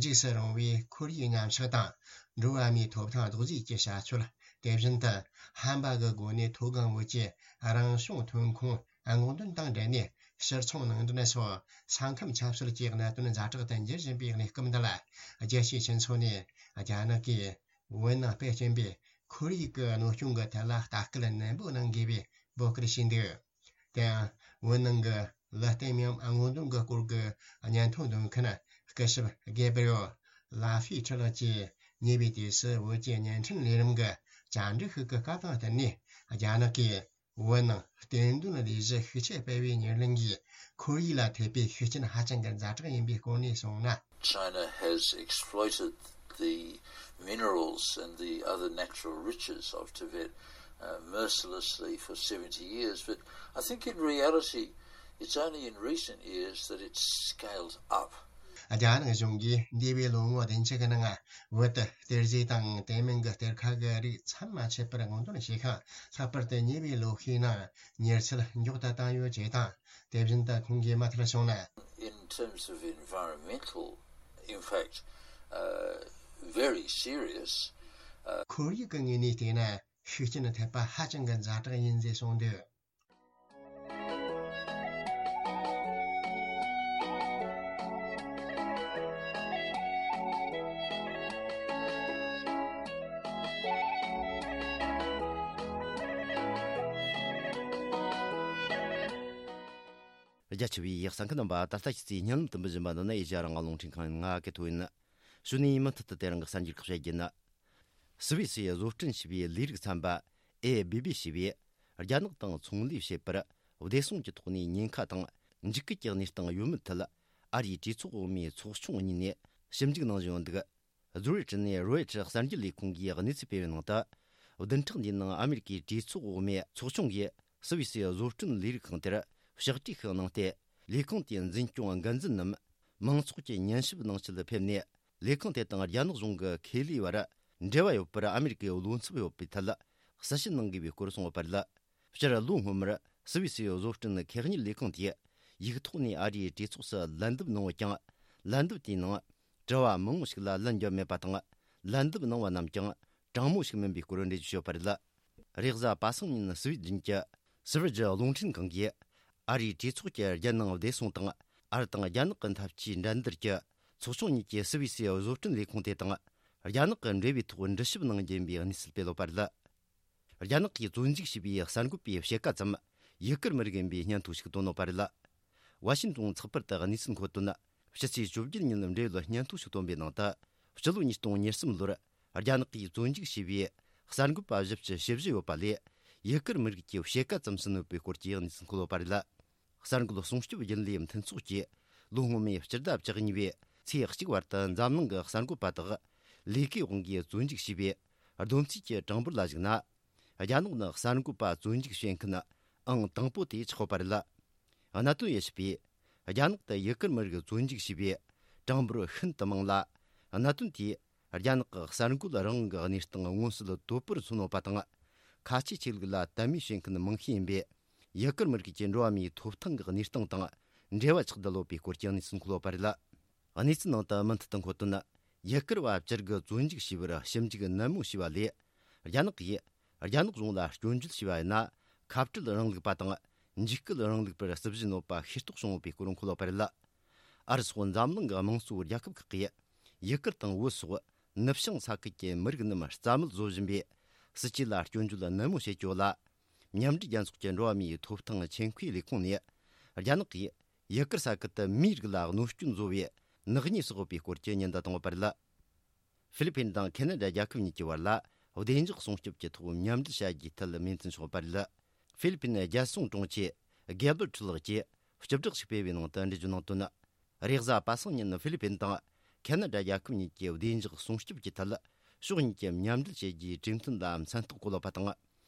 འཇིགས་སུ་རུང་བའི་ཁོར་ཡུག་ཉམས་ཆག་དང་། འགྲོ་བ་མིའི་ཐོབ་ཐང་རྡོག་རྫིས་ཀྱི་བྱ་སྤྱོད། དེ་བཞིན་དུ་ཧམ་པ་གི་སྒོ་ནས་མཐོ་སྒང་བོད་ཀྱི་རང་བྱུང་ཐོན་ཁུངས་སྔོག་འདོན་དང་འབྲེལ་ནས་ཕྱིར་ཚོང་ནང་འདྲེན་སོགས་ས་ཁམས་ཆབ་སྲིད་ཀྱི་གནད་དོན་ཛ་དྲག་ཏུ་འགྱུར་བཞིན་པའི་གནས་སྐབས་འདི་ལ། རྒྱལ་སྤྱིའི་སྤྱི་ཚོགས་ནས་རྒྱ་ནག་གིས་བོད་ནང་སྤེལ་བཞིན་པའི་ཁོར་ཡུག་གི་གནོད་སྐྱོན་གྱི་ཐད་ལ་ལྟ་སྐུལ་ནན་པོ་གནང་དགོས་པའི་འབོད་སྐུལ་བྱས་འདུག་དེ་ཡང་། བོད་ནང་གི་ལི་ཐི་ཡམ་སྔོག་འདོན་གྱི་སྐོར་གྱི་སྙན་ཐོ་འདོན་མཁན་སྐུ་ཞབས་གེ་བྷི་རི་ཨེལ་ལ་ཧྥི་ཁྲི་ལགས་ཀྱིས་ཉེ་བའི་དུས་སུ་བོད་ཀྱི་བརྙན་འཕྲིན་ལས་རིམ་གྱི་བཅར་འདྲི་ཞིག་གི་སྐབས་དང་བསྟུན་ནས། རྒྱ་ནག་གིས་བོད་ནང་བསྟན་དོན་ལས་གཞི་ཤུགས་ཆེ་སྤེལ་བའི་ཉེར་ལེན་གྱིས་ཁོར་ཡུག་ལ་ཐེབས་པའི་ཤུགས་རྐྱེན་ཧ་ཅང་གི་ཛ་དྲག་ཡིན་པའི་སྐོར་ནས་གསུངས་ན། China has exploited the minerals and the other natural riches of Tibet uh, mercilessly for seventy years, but I think in reality, it's only in recent years that it's scaled up. རྒྱ་ནག་གཞུང་གིས་འདས་པའི་ལོ་ངོ་བདུན་ཅུ་གི་ནང་བོད་དུ་གཏེར་རྫས་དང་དེ་མིན་གྱི་གཏེར་ཁ་གི་རིགས་མཚམས་མ་ཆད་པར་སྔོག་འདོན་བྱས་ཤིང་། ལྷག་པར་དུ་ཉེ་བའི་ལོ་ཤས་ནང་མྱུར་ཚད་མགྱོགས་དུ་བཏང་ཡོད་ཅེས་དང་། དེ་བཞིན་དུ་ཁོང་གིས་མུ་མཐུད་གསུངས་ན། In terms of environmental impact, uh, very serious. Uh, ཁོར་ཡུག་གི་ངོས་ནས་བལྟས་ན་ཤུགས་རྐྱེན་ཐེབས་པ་ཧ་ཅང་གི་ཛ་དྲག་ཡིན་ཞེས་གསུངས་འདུག་རྒྱ་ཆེ་བའི་གསན་མཁན་རྣམ་པ། ད་ལྟ་ཁྱེད་ཚོས་སྙན་ལམ་དུ་འབུལ་བཞིན་པ་འདི་ནི་ཨེ་ཤ་ཡ་རང་དབང་རླུང་འཕྲིན་ཁང་ཡིན། ང་གི་ཐོ་ཡིན། གཞུག་ནས་མུ་མཐུད་དུ་དེ་རིང་གི་གསར་འགྱུར་ཁག་བཤད་རྒྱུ་ཡིན། སུད་སི་བཟོ་སྐྲུན་བྱས་པའི་ལས་རིགས་ཚན་པ་ཨེ་བི་བི་ཞེས་པས། རྒྱ་ནག་དང་ཚོང་ལས་བྱེད་པར་བདེ་སྲུང་གི་ཐོག་ནས་ཉེན་ཁ་དང་འཇིགས་སྐུལ་གྱི་གནས་སྟངས་ཡོད་མེད་ཐད། ཨ་རིའི་གྲོས་ཚོགས་འོག་མའི་ཚོགས་ཆུང་གཉིས་ནས་ཞིབ་འཇུག་གནང་བཞིན་ཡོད་འདུག་ཛུ་རིག་ནས་རོའི་ཊར་གསར་འགྱུར་ལས་ཁུངས་ཀྱིས་གནས་ཚུལ་སྤེལ་བའི་ནང་དུ། བདུན་ཕྲག་འདིའི་ནང་ཨ་མེ་རི་ཀའི་གྲོས་ཚོགས་འོག་མའི་ཚོགས་ཆུང་གིས་སུད་སི་བཟོ་སྐྲུན་ལས་རིགས་ཁང་དེར་ཕྱག་བྲིས་ཤིག་གནང་སྟེ། ལས་ཁང་དེའི་འཛིན་སྐྱོང་འགན་འཛིན་ནམ་མང་ཚོགས་ཀྱི་ཉན་ཞིབ་གནང་ཆེད་ཕེབས་ནས། ལས་ཁང་དེ་དང་རྒྱ་ནག་གཞུང་གི་ཁེ་ལས་བར་འབྲེལ་བ་ཡོད་པར་ཨ་མེ་རི་ཀའི་བློ་འཚབ་ཡོད་པའི་ཐད་གསལ་བཤད་གནང་དགོས་པའི་སྐོར་གསུངས་ཡོད་པ་རེད། སྤྱིར་ལོ་སྔོན་མར་སུད་སི་བཟོ་སྐྲུན་ཁེ་གཉེར་ལས་ཁང་དེས་ཡིག་ཐོག་ནས་ཨ་རིའི་གྲོས་ཚོགས་སུ་ལན་འདེབས་གནང་ཡོད་ཀྱང་། ལན་འདེབས་དེའི་ནང་དྲི་བ་མང་པོ་ཞིག་ལ་ལན་བརྒྱབ་མེད་པ་དང་། ལན་འདེབས་གནང་བ་རྣམས་ཀྱང་དྲང་མོ་ཞིག་མིན་པའི་སྐོར་འགྲེལ་བརྗོད་བྱས་ཡོད་པ་རེད། རེས་གཟའ་པ་སངས་ཉིན་སུད་སི་གཞུང་གི་སི་ཝེ་ཇི་རླུང་འཕྲིན་ཁང་གིས་ཨ་རིའི་གྲོས་ཚོགས་ཀྱི་རྒྱལ་ནང་བདེ་སྲུང་དང་། ཨ་རི་དང་རྒྱ་ནག་གི་འཐབ་ཇུས་འགྲན་བསྡུར་གྱི་ཚོགས་ཆུང་གཉིས་ཀྱི་སུད་སི་བཟོ་སྐྲུན་ལས་ཁུངས་དེ་དང་རྒྱ་ནག་གི་འབྲེལ་བའི་ཐོག་འདྲི་ཞིབ་གནང་རྒྱུ་ཡིན་པའི་གནས་ཚུལ་སྤེལ་ཡོད་པ་རེད། རྒྱ་ནག་གིས་བཙོན་འཇུག་བྱས་པའི་གསར་འགོད་པའི་ཕྱེད་ཀ་ཙམ་ཡུ་གུར་མི་རིགས་ཡིན་པའི་སྙན་ཐོ་ཞིག་བཏོན་ཡོད་པ་རེད། ཝ་ཤིན་ཏོན་ཚགས་པར་དུ་གནས་ཚུལ་འཁོད་དོན། ཕྱི་ཚེས་བཅུ་བརྒྱད་ཉིན་འབྲེལ་ཡོད་སྙན་ཐོ་ཞིག་བཏོན་པའི་ནང་དུ། སྤྱི་ལོ་ཉིས་སྟོང་ཉེར་གསུམ་ལོར་རྒྱ་ནག་གིས་བཙོན་འཇུག་བྱས་པའི་གསར་འགོད་པ་བཞི་བཅུ་ཞེ་བཞི་ཡོད་པ་ལས། ཡུ་གུར་མི་རིགས་ཀྱི་ཕྱེད་ཀ་ཙམ་ཟིན་ཡོད་པའི་སྐོར་གྱི་གནས་ཚུལ་འཁོད་ཡོད་པ་རེད། གསར་འགོད་སྲུང་སྐྱོབ་རྒྱུན་ལས་མཐུན་ཚོགས་ཀྱིས་ལོ་སྔོན་མའི་སྤྱི་ཟླ་བཅུ་གཉིས་པའི་ཚེས་གཅིག་བར་དུ་འཛམ་གླིང་གི་གསར་འགོད་པ་དག་ལས་ཀའི་དབང་གིས་བཙོན་འཇུག་བྱས་པའི་བསྡོམས་རྩིས་ཀྱི་གྲངས་འབོར་ལ་གཞིགས་ན། རྒྱ་ནག་ནི་གསར་འགོད་པ་བཙོན་འཇུག་བྱེད་མཁན་ཨང་དང་པོ་དེ་ཆགས་ཡོད་པ་རེད། གནད་དོན་དབྱེ་ཞིབ་པས། རྒྱ་ནག་ཏུ་ཡུ་གུར་མི་རིགས་བཙོན་འཇུག་བྱས་པའི་གྲངས་འབོར་ཤིན་ཏུ་མང་ལ། གནད་དོན་དེས་རྒྱ་ནག་གི་གསར་འགོད་རང་དབང་གི་གནས་སྟངས་མངོན་གསལ་དོད་པོར་མཚོན་ཡོད་པ་དང་། ཁ་ཆེ་ཆོས་ལུགས་ལ་དད་མོས་བྱེད་མཁན་མང་ཤས་ཡིན་པས། ཡུ་གུར་མི་རིགས་ཀྱི་འགྲོ་བ་མིའི་ཐོབ་ཐང་གི་གནས་སྟངས་དང་འབྲེལ་བ་ཆགས་བསྡད་ཡོད་པའི་སྐོར་གྱི་གནས་ཚུལ་འཁོད་ཡོད་པ་རེད། གནས་ཚུལ་ནང་དུ་མུ་མཐུད་དུ་འཁོད་དོན། ཡུ་གུར་བ་བཅུ་དགུ་བཙོན་འཇུག་བྱས་པར་ཞིབ་འཇུག་ནན་མོ་བྱས་པ་ལས། རྒྱ་ནག་གིས་རྒྱ་ནག་གཞུང་ལ་སྐྱོན་བརྗོད་བྱས་པ་ཡིན་ན། ཁ་བྲལ་རིང་ལུགས་པ་དང་ འཇིགས་སྐུལ་རིང་ལུགས་པར་སྲིད་བཞི་གནོད་པ་ཤེས་རྟོགས་བྱུང་ཡོད་པའི་སྐོར་འཁོད་པ་རེད། ཨ་རི་སོགས་འཛམ་གླིང་གི་དམངས་གཙོའི་རྒྱལ་ཁབ་ཁག་གིས་ཡུ་གུར་དང་བོད་སོགས་ནུབ་བྱང་ས་ཁུལ་གྱི་མི་རིགས་རྣམས་རྩ་མེད་བཟོ་བཞིན་པའི་སྲིད་ཇུས་ལ་སྐྱོན་བརྗོད་ནན་མོ་བྱེད་ཀྱི་ཡོད་ལ། མཉམ་འབྲེལ་རྒྱལ་ཚོགས་ཀྱི་འགྲོ་བ་མིའི་ཐོབ་ཐང་ཆེད་མཁོའི་ལས་ཁུངས་ནས། རྒྱ་ནག་གིས་ཡུ་གུར་ས་ཁུལ་དུ་མིའི་རིགས་ལ་གནོད་སྐྱོན་བཟོ་བའི་ནག་ཉེས་སོགས་ཡོད་པའི་སྐོར་གྱི་ཉེན་བརྡ་བཏང་ཡོད་པ་རེད། ཧྥི་ལི་ཕིན་དང་ཁེ་ན་ཌ་རྒྱལ་ཁབ་གཉིས་ཀྱི་བར་ལ་བདེ་འཇགས་སྲུང་སྐྱོབ་ཀྱི་ཐོག་མཉམ་འབྲེལ་བྱ་རྒྱུའི་ཐད་མོས་མཐུན་བྱུང་ཡོད་པ་རེད། ཧྥི་ལི་ཕིན་རྒྱལ་སྲུང་དྲུང་ཆེ་གེ་བར་ཁྲི་ལགས་ཀྱིས་བཅུ་ཕྲག་ཞིག་སྤེལ་བའི་ནང་དུ་འགྲེལ་བརྗོད་གནང་དོན། རེས་གཟའ་པ་སངས་ཉིན་ཧྥི་ལི་ཕིན་དང་ཁེ་ན་ཌ་རྒྱལ་ཁབ་གཉིས་ཀྱི་བདེ་འཇགས་སྲུང་སྐྱོབ་ཀྱི་ཐད་ཕྱོགས་གཉིས་ཀྱི་མཉམ་འབྲེལ་བྱེད་རྒྱུའི་གྲོས་མཐུན་ལ་མཚན་རྟགས་བཀོད་ཡོད་པ་དང་།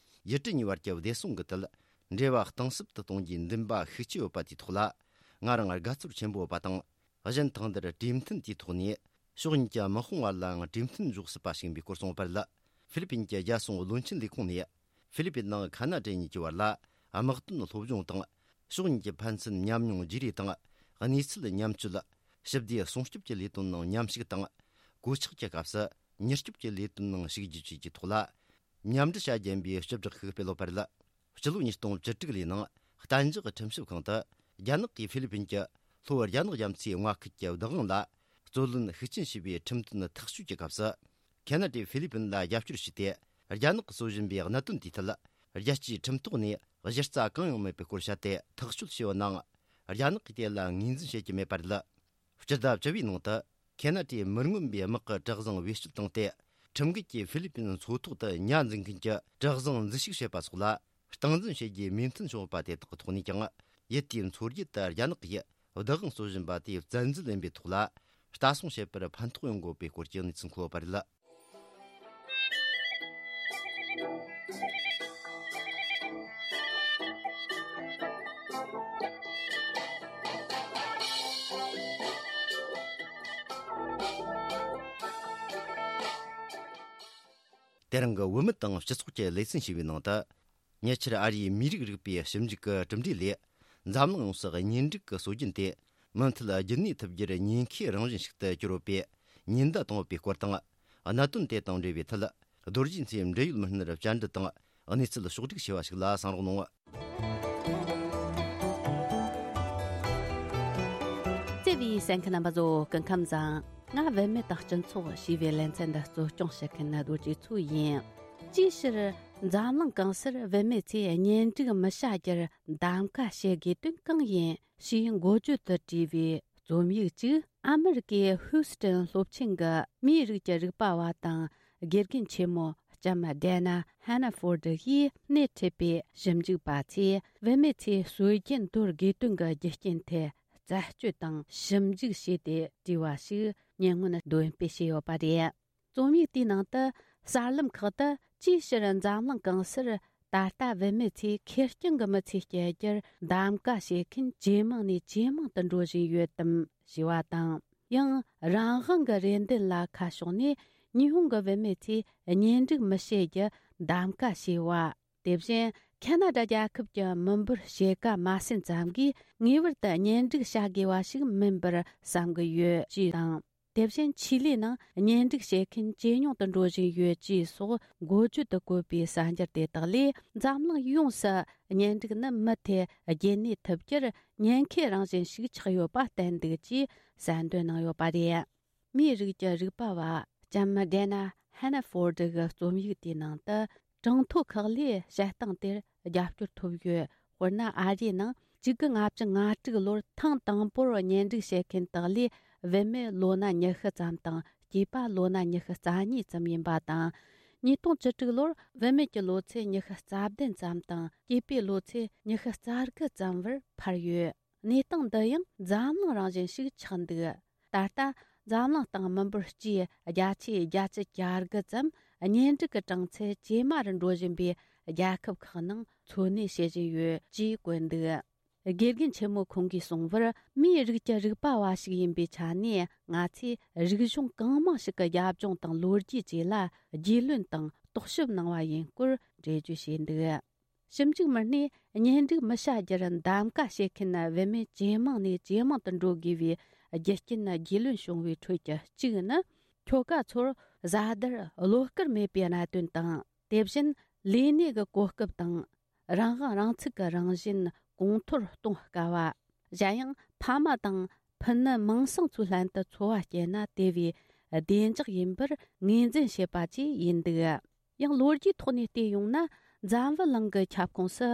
ཡུལ་གྲུ་གཉིས་བར་གྱི་བདེ་སྲུང་གི་ཐད་འབྲེལ་བ་གཏིང་ཟབ་ཏུ་གཏོང་རྒྱུའི་འདུན་པ་ཤུགས་ཆེ་ཡོད་པ་དེའི་ཐོག་ལ་ང་རང་དགའ་ཚོར་ཆེན་པོ་ཡོད་པ་དང་། གཞན་ཐང་འདིར་གྲོས་མཐུན་དེའི་ཐོག་ནས་ཕྱོགས་གཉིས་ཀྱི་དམག་དཔུང་བར་ལའང་གྲོས་མཐུན་འཇོག་སྲིད་པ་ཞིག་ཡིན་པའི་སྐོར་གསུངས་པ་རེད། ཧྥི་ལི་ཕིན་གྱི་རྒྱལ་སྲུང་བློན་ཆེན་ལས་ཁུངས་ནས་ཧྥི་ལི་ཕིན་དང་ཁ་ན་ཌ་གཉིས་ཀྱི་བར་ལ་དམག་དོན་སློབ་སྦྱོང་དང་། ཕྱོགས་གཉིས་ཀྱི་ཕན་ཚུན་ཉམས་མྱོང་བརྗེ་རེས་དང་། གནས་ཚུལ་མཉམ་སྤྱོད། ཞི་བདེ་སྲུང་སྐྱོབ་ཀྱི་ལས་དོན་ནང་མཉམ་ཞུགས་དང་། གོད་ཆག་གི་སྐབས་སུ་མྱུར་སྐྱོབ་ཀྱི་ལས་དོན་ནང་ཞུགས་རྒྱུ་བཅས་ཀྱི་ཐོག་ལ་མཉམ་འབྲེལ་བྱ་རྒྱུ་ཡིན་པའི་སྤྱི་བསྒྲགས་ཤིག་སྤེལ་ཡོད་པ་རེད། སྤྱི་ལོ་ཉིས་སྟོང་བཅུ་དྲུག་ལོའི་ནང་གཏན་འཇགས་ཁྲིམས་ཞིབ་ཁང་དུ་རྒྱ་ནག་གིས་ཧྥི་ལི་ཕིན་གྱི་ལྷོ་རྒྱ་ནག་རྒྱ་མཚོའི་མངའ་ཁུལ་གྱི་བདག་དབང་ལ་རྩོད་ལེན་ཤུགས་ཆེན་བྱས་པའི་ཁྲིམས་དོན་ཐག་གཅོད་ཀྱི་སྐབས་སུ། ཁེ་ན་ཌས་ཧྥི་ལི་ཕིན་ལ་རྒྱབ་སྐྱོར་བྱས་ཏེ། རྒྱ་ནག་གིས་བཟོ་བཞིན་པའི་གནད་དོན་དེའི་ཐད། རྒྱལ་སྤྱིའི་ཁྲིམས་ཐོག་ནས་གཞི་རྩ་གང་ཡང་མེད་པའི་སྐོར་བཤད་དེ་ཐག་གཅོད་བྱས་ཡོད་ནའང་། རྒྱ་ནག་གིས་དེ་ལ་ངོས་འཛིན་བྱེད་ཀྱི་མེད་པ་རེད། སྤྱི་ཟླ་བཅུ་པའི་ནང་དུ། ཁེ་ན་ཌས་མི་མངོན་པའི་དམག་གི་གྲུ་གཟིངས་བེད་སྤྱོད་བཏང་སྟེ། ཁྲིམས་འགལ་གྱིས་ཧྥི་ལི་ཕིན་མཚོ་ཐོག་ཏུ་ཉ་འཛིན་མཁན་གྱི་གྲུ་གཟིངས་འཛུལ་ཞུགས་བྱས་པ་སོགས་ལ། སྟངས་འཛིན་བྱེད་རྒྱུའི་མོས་མཐུན་བྱུང་བ་དེ་དག་གི་ཐོག་ནས་ཀྱང་། ཡུལ་དེའི་མཚོ་རྒྱུད་དུ་རྒྱ་ནག་གིས་བདག་དབང་རྩོད་བཞིན་པ་དེའི་བཙན་འཛུལ་ཡིན་པའི་ཐོག་ལ། ལྟ་སྲུང་བྱེད་པར་ཕན་ཐོགས་ཡོང་དགོས་པའི་སྐོར་གྱི་གནས་ཚུལ་འཁོད་པ་རེད། དེ་རིང་གི་བུད་མེད་དང་སྤྱི་ཚོགས་ཀྱི་ལེ་ཚན་ཞེས་པའི་ནང་དུ། ཉེ་ཆར་ཨ་རིའི་མིའི་རིགས་རིག་པའི་ཞིབ་འཇུག་གི་གྲུབ་འབྲས་ལས། འཛམ་གླིང་ཡོངས་སུ་གཉེན་སྒྲིག་གི་སྲོལ་རྒྱུན་དེ་མུ་མཐུད་རྒྱུན་གནས་ཐུབ་རྒྱུར་ཉེན་ཁའི་རང་བཞིན་ཞིག་ཏུ་གྱུར་ཡོད་པའི་ཉེན་བརྡ་བཏང་ཡོད་པའི་སྐོར་དང་། གནད་དོན་དེ་དང་འབྲེལ་བའི་ཐད། རྡོ་རྗེ་མཚོའི་འབྲེལ་ཡོད་མི་སྣར་བཅར་འདྲི་དང་གནས་ཚུལ་ཕྱོགས་སྒྲིག་བྱས་པ་ཞིག་ལ་གསན་རོགས་གནང་། བརྩེ་བའི་གསན་མཁན་རྣམ་པ་ཚོ་སྐུ་ཁམས་བཟང་། ང་བུད་མེད་དང་སྤྱི་ཚོགས་ཞེས་པའི་ལེ་ཚན་འདི་གཙོ་སྐྱོང་བྱེད་མཁན་རྡོ་རྗེ་མཚོ་ཡིན། ཅིའི་ཕྱིར་འཛམ་གླིང་གང་སར་བུད་མེད་ཚོས་གཉེན་སྒྲིག་མི་བྱ་རྒྱུར་གདམ་ག་བྱེད་དགོས་དོན་གང་ཡིན་ཞེས་འགོ་བརྗོད་དུ་བྲིས་པའི་རྩོམ་ཡིག་ཅིག་ཨ་མི་རི་ཀའི་ཧུའུ་སི་ཏན་སློབ་ཆེན་གྱི་མིའི་རིགས་ཀྱི་རིག་པ་བ་དང་། དགེ་རྒན་ཆེན་མོ་ལྕམ་ཌེ་ན་ཧན་ན་ཧྥོར་ཌི་ཡིས་སྣེ་ཁྲིད་པའི་ཞིབ་འཇུག་པ་ཚོས་བུད་མེད་ཚོས་སྲོལ་རྒྱུན་དོར་དགོས་དོན་གྱི་རྒྱུ་རྐྱེན་ཐད་རྩད་གཅོད་དང་ཞིབ་འཇུག་བྱས་ཏེ་བྲིས་པ་ཞིག་ཉེ་སྔོན་འདོན་སྤེལ་བྱས་ཡོད་པ་རེད། རྩོམ་ཡིག་དེའི་ནང་དུ་གསར་ལམ་ཁག་ཏུ་ཅིའི་ཕྱིར་འཛམ་གླིང་གང་སར་ད་ལྟ་བུད་མེད་ཚོས་ཁེར་རྐྱང་གི་མི་ཚེ་སྐྱེལ་རྒྱུར་གདམ་ག་བྱེད་མཁན་ཇེ་མང་ནས་ཇེ་མང་དུ་འགྲོ་བཞིན་ཡོད་དམ་ཞེས་པ་དང་། ཡང་རང་དབང་གི་རེ་འདུན་ལ་ཁ་ཕྱོགས་ནས་ཉི་ཧོང་གི་བུད་མེད་ཚོས་གཉེན་སྒྲིག་མི་བྱེད་རྒྱུ་གདམ་ག་བྱས་པ། དེ་བཞིན་ཁ་ན་ཌ་རྒྱལ་ཁབ་ཀྱི་མི་འབོར་ཕྱེད་ཀ་མ་ཟིན་ཙམ་གྱིས་ངེས་པར་དུ་གཉེན་སྒྲིག་བྱ་དགོས་པ་ཞིག་མིན་པར་བསམ་གྱི་ཡོད་ཅེས་དང་། དེ་བཞིན་ཆི་ལི་ནང་གཉེན་སྒྲིག་བྱེད་མཁན་ཇེ་ཉུང་དུ་འགྲོ་བཞིན་ཡོད་ཅེས་སོགས་འགོ་བརྗོད་དུ་བཀོད་པའི་གསར་འགྱུར་དེ་དག་ལས། འཛམ་གླིང་ཡོངས་སུ་གཉེན་སྒྲིག་ནི་མུ་མཐུད་རྒྱུན་གནས་ཐུབ་རྒྱུར་ཉེན་ཁའི་རང་བཞིན་ཞིག་ཆགས་ཡོད་པ་བསྟན་འདུག་ཅེས་གསལ་འདོན་གནང་ཡོད་པ་རེད། མིའི་རིགས་ཀྱི་རིག་པ་བ་ལྕམ་ཌེ་ན་ཧན་ན་ཧྥོར་ཌི་གི་རྩོམ་ཡིག་དེའི་ནང་དུ། གྲངས་ཐོ་ཁག་ལས་བཤད་སྟངས་དེར་རྒྱབ་སྐྱོར་ཐོབ་ཡོད། དཔེར་ན། ཨ་རིའི་ནང་གཅིག་དགུ་ལྔ་བཅུ་ང་དྲུག་ལོར་ཐེངས་དང་པོར་གཉེན་སྒྲིག་བྱེད་མཁན་དག་ལས་བུད་མེད་ལོ་ན་ཉི་ཤུ་ཙམ་དང་སྐྱེས་པ་ལོ་ན་ཉི་ཤུ་རྩ་གཉིས་ཙམ་ཡིན་པ་དང་། ཉིས་སྟོང་བཅུ་དྲུག་ལོར་བུད་མེད་ཀྱི་ལོ་ཚད་ཉི་ཤུ་རྩ་བདུན་ཙམ་དང་སྐྱེས་པའི་ལོ་ཚད་ཉི་ཤུ་རྩ་དགུ་ཙམ་བར་འཕར་ཡོད། གནས་སྟངས་འདི་ཡང་འཛམ་གླིང་རང་བཞིན་ཞིག་ཆགས་འདུག། ད་ལྟ་འཛམ་གླིང་སྟེང་མི་འབོར་སྤྱིའི་བརྒྱ་ཆའི་བརྒྱད་ཅུ་གྱ་དགུ་ཙམ་གཉེན་སྒྲིག་གི་གྲངས་ཚད་ཇེ་དམའ་རུ་འགྲོ་བཞིན་པའི་རྒྱལ་ཁབ་ཁག་ནང་འཚོ་གནས་བྱེད་བཞིན་ཡོད་ཅེས་བཀོད་འདུག། དགེ་རྒན་ཆེན་མོ་ཁོང་གིས་གསུངས་པར། མིའི་རིགས་ཀྱི་རིག་པ་བ་ཞིག་ཡིན་པའི་ཆ་ནས། ང་ཚོས་རིག་གཞུང་གང་མང་ཞིག་གི་རྒྱབ་ལྗོངས་དང་ལོ་རྒྱུས་བཅས་ལ་རྒྱུས་ལོན་དང་རྟོག་ཞིབ་གནང་བ་ཡིན་སྐོར་འགྲེལ་བརྗོད་བྱས་འདུག། ཞིབ་འཇུག་མི་སྣས་གཉེན་སྒྲིག་མི་བྱ་རྒྱུར་གདམ་ག་བྱེད་མཁན་བུད་མེད་ཇེ་མང་ནས་ཇེ་མང་དུ་འགྲོ་དགོས་པའི་རྒྱུ་རྐྱེན་རྒྱུས་ལོན་བྱུང་བའི་ཁྲོད་ཀྱི་གཅིག་ནི། ཁྱོ་ག་ཚོར་བཟའ་ཟླར་བློ་དཀར་མེད་པའི་གནད་དོན་དང་། དེ་བཞིན་ལས་གནས་ཀྱི་གོ་སྐབས་དང་། རང་དབང་རང་ཚུགས་ཀྱི་རང་བཞིན་གོང་མཐོར་གཏོང་དཀའ་བ། གཞན་ཡང་ཕ་མ་དང་ཕུ་ནུ་མིང་སྲིང་ཚོའི་ལྷན་དུ་འཚོ་བ་སྐྱེལ་ན་དེ་བས་བདེ་འཇགས་ཡིན་པར་ངོས་འཛིན་བྱེད་པ་བཅས་ཡིན་འདུག་ཡང་ལོ་རྒྱུས་ཐོག་ནས་བལྟས་ཡོང་ན། འཛམ་བུ་གླིང་གི་ཁྱབ་ཁོངས་སུ་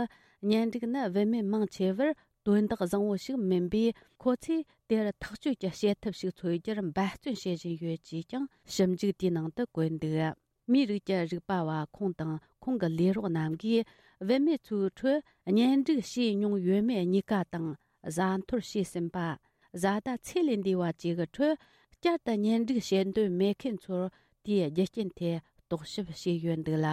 གཉེན་སྒྲིག་ནི་བུད་མེད་མང་ཆེ་བར་དོན་དག་བཟང་བོ་ཞིག་མིན་པས། ཁོ་ཚོས་དེར་ཐག་གཅོད་ཀྱི་བྱེད་ཐབས་ཤིག་འཚོལ་རྒྱུར་འབད་བརྩོན་བྱེད་བཞིན་ཡོད་ཅེས་ཀྱང་ཞིབ་འཇུག་དེའི་ནང་དུ་བཀོད་འདུག་མིའི་རིགས་ཀྱི་རིག་པ་བ་ཁོང་དང་ཁོང་གི་ལས་རོགས་རྣམས་ཀྱིས། བུད་མེད་ཚོའི་ཁྲོད་གཉེན་སྒྲིག་བྱས་མྱོང་ཡོད་མེད་གཉིས་ཀ་དང་། བཟའ་འཐོར་བྱས་ཟིན་པ། བཟའ་ཟླ་ཚེ་ལས་འདས་པ་བཅས་ཀྱི་ཁྲོད་བསྐྱར་དུ་གཉེན་སྒྲིག་བྱེད་འདོད་མེད་མཁན་ཚོར་དེའི་རྒྱུ་རྐྱེན་ཐད་རྟོག་ཞིབ་བྱས་ཡོད་འདུག་ལ།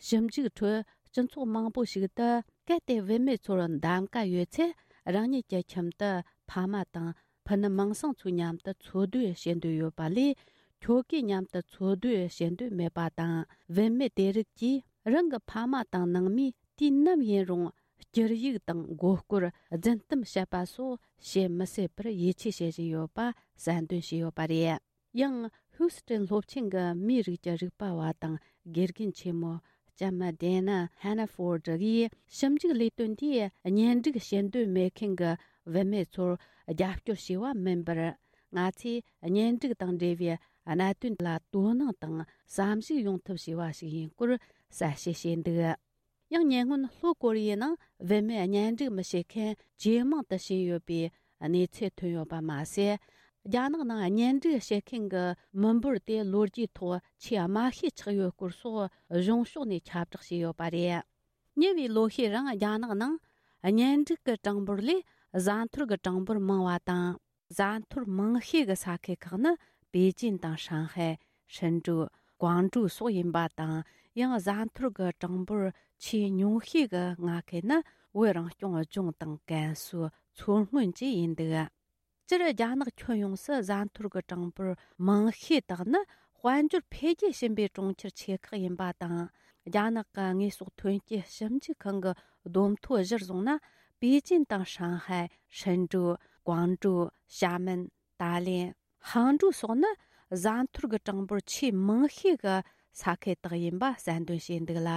ཞིབ་འཇུག་ཁྲོད་སྤྱི་ཚོགས་མང་པོ་ཞིག་ཏུ། གལ་ཏེ་བུད་མེད་ཚོར་གདམ་ག་ཡོད་ཚེ། རང་ཉིད་ཀྱི་ཁྱིམ་དུ་ཕ་མ་དང་ཕུ་ནུ་མིང་སྲིང་ཚོའི་མཉམ་དུ་འཚོ་སྡོད་བྱེད་འདོད་ཡོད་པ་ལས། ཁྱོ་གའི་མཉམ་དུ་འཚོ་སྡོད་བྱེད་འདོད་མེད་པ་དང་། བུད་མེད་དེ་རིགས་ཀྱིས་རང་གི་ཕ་མ་དང་ནང་མིས་དུས་ནམ་ཡིན་རུང་། སྐྱུར་ཡིག་དང་མགོ་སྐོར། རྫུན་གཏམ་བཤད་པ་སོགས་བྱེད་མི་སྲིད་པར་ཡིད་ཆེས་བྱེད་བཞིན་ཡོད་པ་གསལ་འདོན་བྱས་ཡོད་པ་རེད། ཡང་ཧུའུ་སི་ཀྲན་སློབ་ཆེན་གྱི་མིའི་རིགས་ཀྱི་རིག་པ་བ་དང་དགེ་རྒན་ཆེན་མོ་ལྕམ་ཌེ་ན་ཧན་ན་ཧྥོར་ཌི་ཡིས། ཞིབ་འཇུག་ལས་དོན་དེས་གཉེན་སྒྲིག་བྱེད་འདོད་མེད་མཁན་གྱི་བུད་མེད་ཚོར་རྒྱབ་སྐྱོར་བྱས་པ་མིན་པར། ང་ཚོས་གཉེན་སྒྲིག་དང་འབྲེལ་བའི་གནད་དོན་ལ་དོ་སྣང་དང་བསམ་གཞིག་ཡོང་ཐབས་བྱས་པ་ཞིག་ཡིན་སྐོར་གསལ་བཤད་བྱས་འདུག་ཡང་ཉེ་སྔོན་ལྷོ་ཀོ་རི་ཡའི་ནང་བུད་མེད་གཉེན་སྒྲིག་མི་བྱེད་མཁན་ཇེ་མང་དུ་ཕྱིན་ཡོད་པའི་གནས་ཚུལ་ཐོན་ཡོད་པ་མ་ཟད། རྒྱ་ནག་ནང་གཉེན་སྒྲིག་བྱེད་མཁན་གྱི་མི་འབོར་དེ་ལོ་རྒྱུས་ཐོག་ཆེས་དམའ་ཤོས་ཆགས་ཡོད་སྐོར་སོགས་གཞུང་ཕྱོགས་ནས་ཁྱབ་བསྒྲགས་བྱས་ཡོད་པ་རེད། ཉེ་བའི་ལོ་ཤས་རིང་རྒྱ་ནག་ནང་གཉེན་སྒྲིག་གི་གྲངས་འབོར་ལས་བཟའ་འཐོར་གྱི་གྲངས་འབོར་མང་བ་དང་། བཟའ་འཐོར་མང་ཤོས་ཀྱི་ས་ཁུལ་ཁག་ནི་པེ་ཅིན་དང་ཧྲང་ཧའེ། ཧྲིན་ཀྲུའུ། ཀོང་ཀྲོའུ་སོགས་ཡིན་པ་དང་། ཡང་བཟའ་འཐོར་གྱི་གྲངས་འབོར་ཆེས་ཉུང་ཤོས་ཀྱི་མངའ་ཁུལ་ནི་བོད་རང་སྐྱོང་ལྗོངས་དང་ཀན་སུའུ། མཚོ་སྔོན་བཅས་ཡིན་འདུག་སྤྱིར་རྒྱ་ནག་ཁྱོན་ཡོངས་སུ་བཟའ་འཐོར་གྱི་གྲངས་འབོར་མང་ཤོས་དག་ནི་དཔལ་འབྱོར་འཕེལ་རྒྱས་ཕྱིན་པའི་གྲོང་ཁྱེར་ཆེ་ཁག་ཡིན་པ་དང་། རྒྱ་ནག་གི་དངོས་ཟོག་ཐོན་སྐྱེད་ཞིབ་འཇུག་ཁང་གི་བསྡོམས་ཐོ་གཞིར་བཟུང་ན། པེ་ཅིན་དང་ཧྲང་ཧའེ། ཧྲིན་ཀྲུའུ། ཀོང་ཀྲོའུ། ཞྭ་མེན། ཏཱ་ལེན། ཧང་ཀྲུའུ་སོགས་ནི་བཟའ་འཐོར་གྱི་གྲངས་འབོར་ཆེས་མང་ཤོས་ཀྱི་ས་ཁུལ་དག་ཡིན་པ་གསལ་འདོན་བྱས་འདུག་ལ།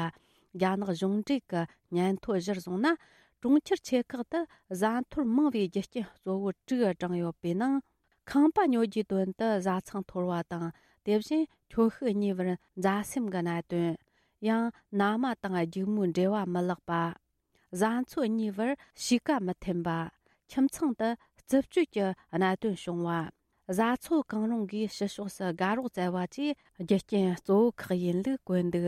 རྒྱ་ནག་གཞུང་འབྲེལ་གྱི་སྙན་ཐོ་གཞིར་བཟུང་ན། གྲོང་ཁྱེར་ཆེ་ཁག་ཏུ་བཟའ་འཐོར་མང་བའི་རྒྱུ་རྐྱེན་གཙོ་བོ་དྲུག་བགྲངས་ཡོད་པའི་ནང་། ཁང་པ་ཉོ་རྒྱུའི་དོན་དུ་བཟའ་ཚང་འཐོར་བ་དང་། དེ་བཞིན་ཁྱོ་ཤུག་གཉིས་བར་མཛའ་སེམས་ཀྱི་གནད་དོན། ཡང་མནའ་མ་དང་སྒྱུག་མོའི་འབྲེལ་བ་མི་ལེགས་པ། བཟའ་ཚོ་གཉིས་བར་གཤིས་ཀ་མི་མཐུན་པ། ཁྱིམ་ཚང་དུ་རྩུབ་སྤྱོད་ཀྱི་གནད་དོན་བྱུང་བ། བཟའ་ཚོ་གང་རུང་གིས་ཕྱི་ཕྱོགས་སུ་དགའ་རོགས་བཙལ་བ་བཅས་རྒྱུ་རྐྱེན་གཙོ་བོ་ཁག་ཡིན་ལུགས་བཀོད་འདུག་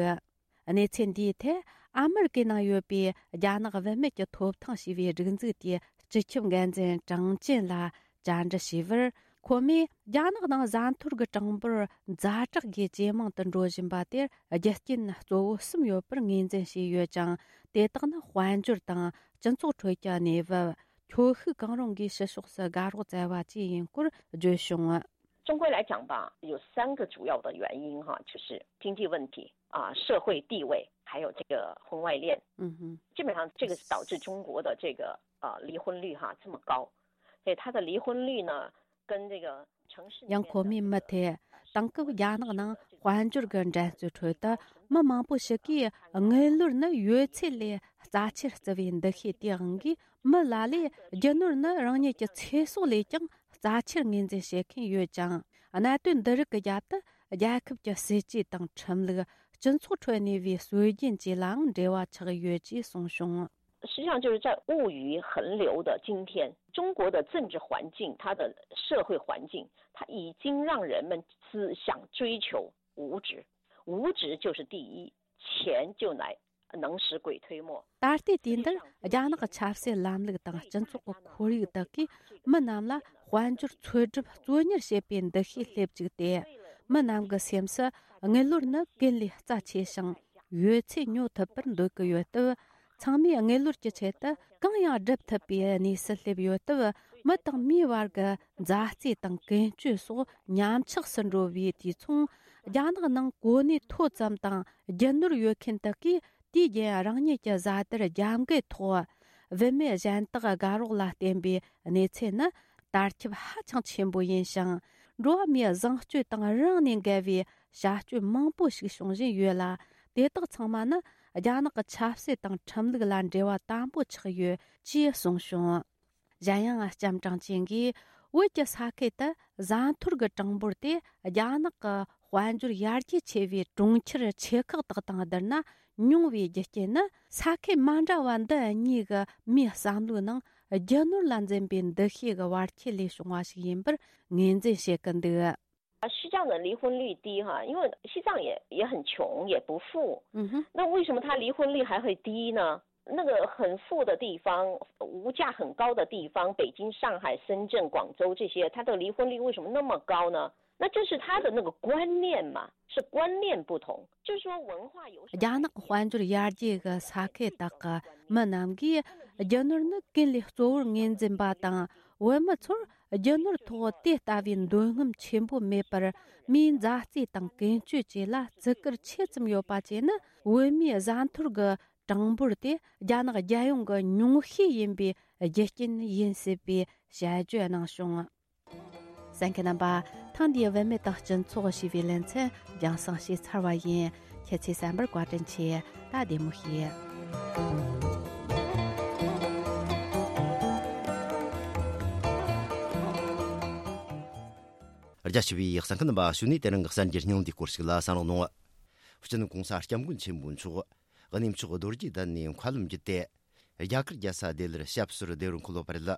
གནས་ཚུལ་འདིའི་ཐད་ཨ་མེ་རི་ཀའི་ནང་ཡོད་པའི་རྒྱ་ནག་བུད་མེད་ཀྱི་ཐོབ་ཐང་ཞེས་པའི་སྒྲིག་འཛུགས་དེའི་སྤྱི་ཁྱབ་འགན་འཛིན་ཀྲང་ཅན་ལ་བཅར་འདྲི་ཞུས་པར། ཁོ་མོས་རྒྱ་ནག་ནང་བཟའ་འཐོར་གྱི་གྲངས་འབོར་ཛ་དྲག་གིས་ཇེ་མང་དུ་འགྲོ་བཞིན་པ་དེར་རྒྱུ་རྐྱེན་གཙོ་བོ་གསུམ་ཡོད་པར་ངོས་འཛིན་བྱས་ཡོད་ཅིང་། དེ་དག་ནི་དཔལ་འབྱོར་དང་སྤྱི་ཚོགས་ཁྲོད་ཀྱི་གནས་བབ། ཁྱོ་ཤུག་གང་རུང་གིས་ཕྱི་ཕྱོགས་སུ་དགའ་རོགས་བཙལ་བ་བཅས་ཡིན་སྐོར་བརྗོད་བྱུང་། 中国来讲吧，有三个主要的原因哈，就是经济问题啊、社会地位，还有这个婚外恋。嗯哼，基本上这个是导致中国的这个呃离婚率哈这么高，所以它的离婚率呢，跟这个城市里面的 ཡང་ཁོ་མོས་མུ་མཐུད་དེང་སྐབས་རྒྱ་ནག་ནང་དཔལ་འབྱོར་གྱི་འགྲན་རྩོད་ཁྲོད་དུ་མི་མང་པོ་ཞིག་གིས་དངུལ་ལོར་ནི་ཡོད་ཚད་ལས་རྩ་ཆེར་བརྩི་བའི་འདུ་ཤེས་དེའང་གིས། མི་ལ་ལས་རྒྱུ་ནོར་ནི་རང་ཉིད་ཀྱི་ཚེ་སྲོག་ལས་ཀྱང་རྩ་ཆེར་ངོས་འཛིན་བྱེད་མཁན་ཡོད་ཅིང་། གནད་དོན་འདི་རིགས་ཀྱི་རྒྱབ་ཏུ་རྒྱལ་ཁབ་ཀྱི་སྲིད་ཇུས་དང་ཁྲིམས་ལུགས། སྤྱི་ཚོགས་ཁྲོད་གནས་པའི་སྲོལ་རྒྱུན་བཅས་ལའང་འབྲེལ་བ་ཆགས་ཡོད་ཅེས་གསུངས་བྱུང་། 实际上就是在物欲横流的今天，中国的政治环境、它的社会环境，它已经让人们只想追求物质，物质就是第一，钱就来能使鬼推磨。 ད་ལྟའི་དུས་འདིར་རྒྱ་ནག་གི་ཆབ་སྲིད་ལམ་ལུགས་དང་སྤྱི་ཚོགས་ཀྱི་ཁོར་ཡུག་དག་གིས་མི་རྣམས་ལ་དཔལ་འབྱོར་འཚོལ་སྒྲུབ་གཙོ་གཉེར་བྱེད་པའི་འདུ་ཤེས་སླེབས་བཅུག་སྟེ། མི་རྣམས་ཀྱི་སེམས་སུ་དངུལ་ལོར་ནི་ཀུན་ལས་རྩ་ཆེ་ཞིང་ཡོད་ཚད་ཉོ་ཐུབ་པར་འདོད་ཀྱི་ཡོད་སྟབས། ཚང་མས་དངུལ་ལོར་གྱི་ཆེད་དུ་གང་ཡང་སྒྲུབ་ཐུབ་པའི་གནས་སུ་སླེབས་ཡོད་སྟབས། མི་དང་མིའི་བར་གྱི་མཛའ་བརྩེ་དང་ཀུན་སྤྱོད་སོགས་ཉམས་ཆག་སུ་འགྲོ་བའི་དུས་མཚུངས། རྒྱ་ནག་ནང་གོ་གནས་མཐོ་ཙམ་དང་རྒྱུ་ནོར་ཡོད་མཁན་དག་གིས་དུས་རྒྱུན་རང་ཉིད་ཀྱི་བཟའ་ཟླར་རྒྱབ་འགལ་ཐོག་བུད་མེད་གཞན་དག་དགའ་རོགས་ལ་བརྟེན་པའི་གནས་ཚུལ་ནི། དར་ཁྱབ་ཧ་ཅང་ཆེན་པོ་ཡིན་ཞིང་། འགྲོ་བ་མིའི་བཟང་སྤྱོད་དང་རིང་ནས་འགལ་བའི་བྱ་སྤྱོད་མང་པོ་ཞིག་བྱུང་བཞིན་ཡོད་ལ། དེ་དག་ཚང་མ་ནི་ རྒྱ་ནག་གི་ཆབ་སྲིད་དང་ཁྲིམས་ལུགས་ལ་འབྲེལ་བ་དམ་པོ་ཆགས་ཡོད་ཅེས་གསུངས་བྱུང་། གཞན་ཡང་ལྕམ་ཀྲང་ཅིན་གྱིས་བོད་ཀྱི་ས་ཁུལ་དུ་བཟའ་འཐོར་གྱི་གྲངས་འབོར་དེ་རྒྱ་ནག་གི་དཔལ་འབྱོར་ཡར་རྒྱས་ཆེ་བའི་གྲོང་ཁྱེར་ཆེ་ཁག་དག་དང་བསྡུར་ན་ཉུང་བའི་རྒྱུ་རྐྱེན་ནི། ས་ཁུལ་མ་འདྲ་བ་འདི་གཉིས་ཀྱི་མིའི་བསམ་བློའི་ནང་རྒྱུ་ནོར་ལ་འཛིན་པའི་འདུ་ཤེས་ཀྱི་བར་ཁྱད་ལས་བྱུང་བ་ཞིག་ཡིན་པར་ངོས་འཛིན་བྱེད་ཀྱི་འདུག། 西藏的离婚率低哈，因为西藏也也很穷，也不富。嗯哼。那为什么他离婚率还会低呢？那个很富的地方，物价很高的地方，北京、上海、深圳、广州这些，它的离婚率为什么那么高呢？那这是他的那个观念嘛，是观念不同，就是说文化有什么。རྒྱ་ནག་དཔལ་འབྱོར་ཡར་རྒྱས་ཀྱི་ས་ཁུལ་དག་གི་མི་རྣམས་ཀྱིས་རྒྱུ་ནོར་ནི་ཀུན་ལས་གཙོ་བོར་ངོས་འཛིན་པ་དང་། བོད་མི་ཚོར་རྒྱུ་ནོར་ཐོག་དེ་ལྟ་བུའི་འདོད་རྔམ་ཆེན་པོ་མེད་པར། མིའི་མཛའ་བརྩེ་དང་ཀུན་སྤྱོད་བཅས་ལ་བརྩི་བཀུར་ཆེ་ཙམ་ཡོད་པ་བཅས་ནི། བོད་མིའི་བཟའ་འཐོར་གྱི་གྲངས་འབོར་དེ་རྒྱ་ནག་རྒྱལ་ཡོངས་ཀྱི་ཉུང་ཤས་ཡིན་པའི་རྒྱུ་རྐྱེན་ཡིན་སྲིད་པའི་དཔྱད་བརྗོད་གནང་བྱུང་། གསན་མཁན་རྣམ་པ། ཐེངས་འདིའི་བུད་མེད་དང་སྤྱི་ཚོགས་ཞེས་པའི་ལེ་ཚན་རྒྱང་སྲིང་བྱས་ཚར་བ་ཡིན། ཁྱེད་ཚོས་གསན་པར་བཀའ་དྲིན་ཆེ། ད་བདེ་མོ་བྱོས། རྒྱ་ཆེ་བའི་གསན་མཁན་རྣམ་པ། གཞུག་ནས་དེ་རིང་གི་གསར་འགྱུར་སྙིང་བསྡུས་སྐོར་ཞིག་ལ་གསན་རོགས་གནང་། སྤྱི་ནོར་༧གོང་ས་༧སྐྱབས་མགོན་ཆེན་པོ་མཆོག་གནས་མཆོག་རྡོ་རྗེ་གདན་ནས་མཁའ་ལམ་བརྒྱུད་དེ། རྒྱ་གར་རྒྱལ་ས་ལྡི་ལིར་ཞབས་སོར་བདེ་བར་འཁོད་ཡོད་པ་རེད།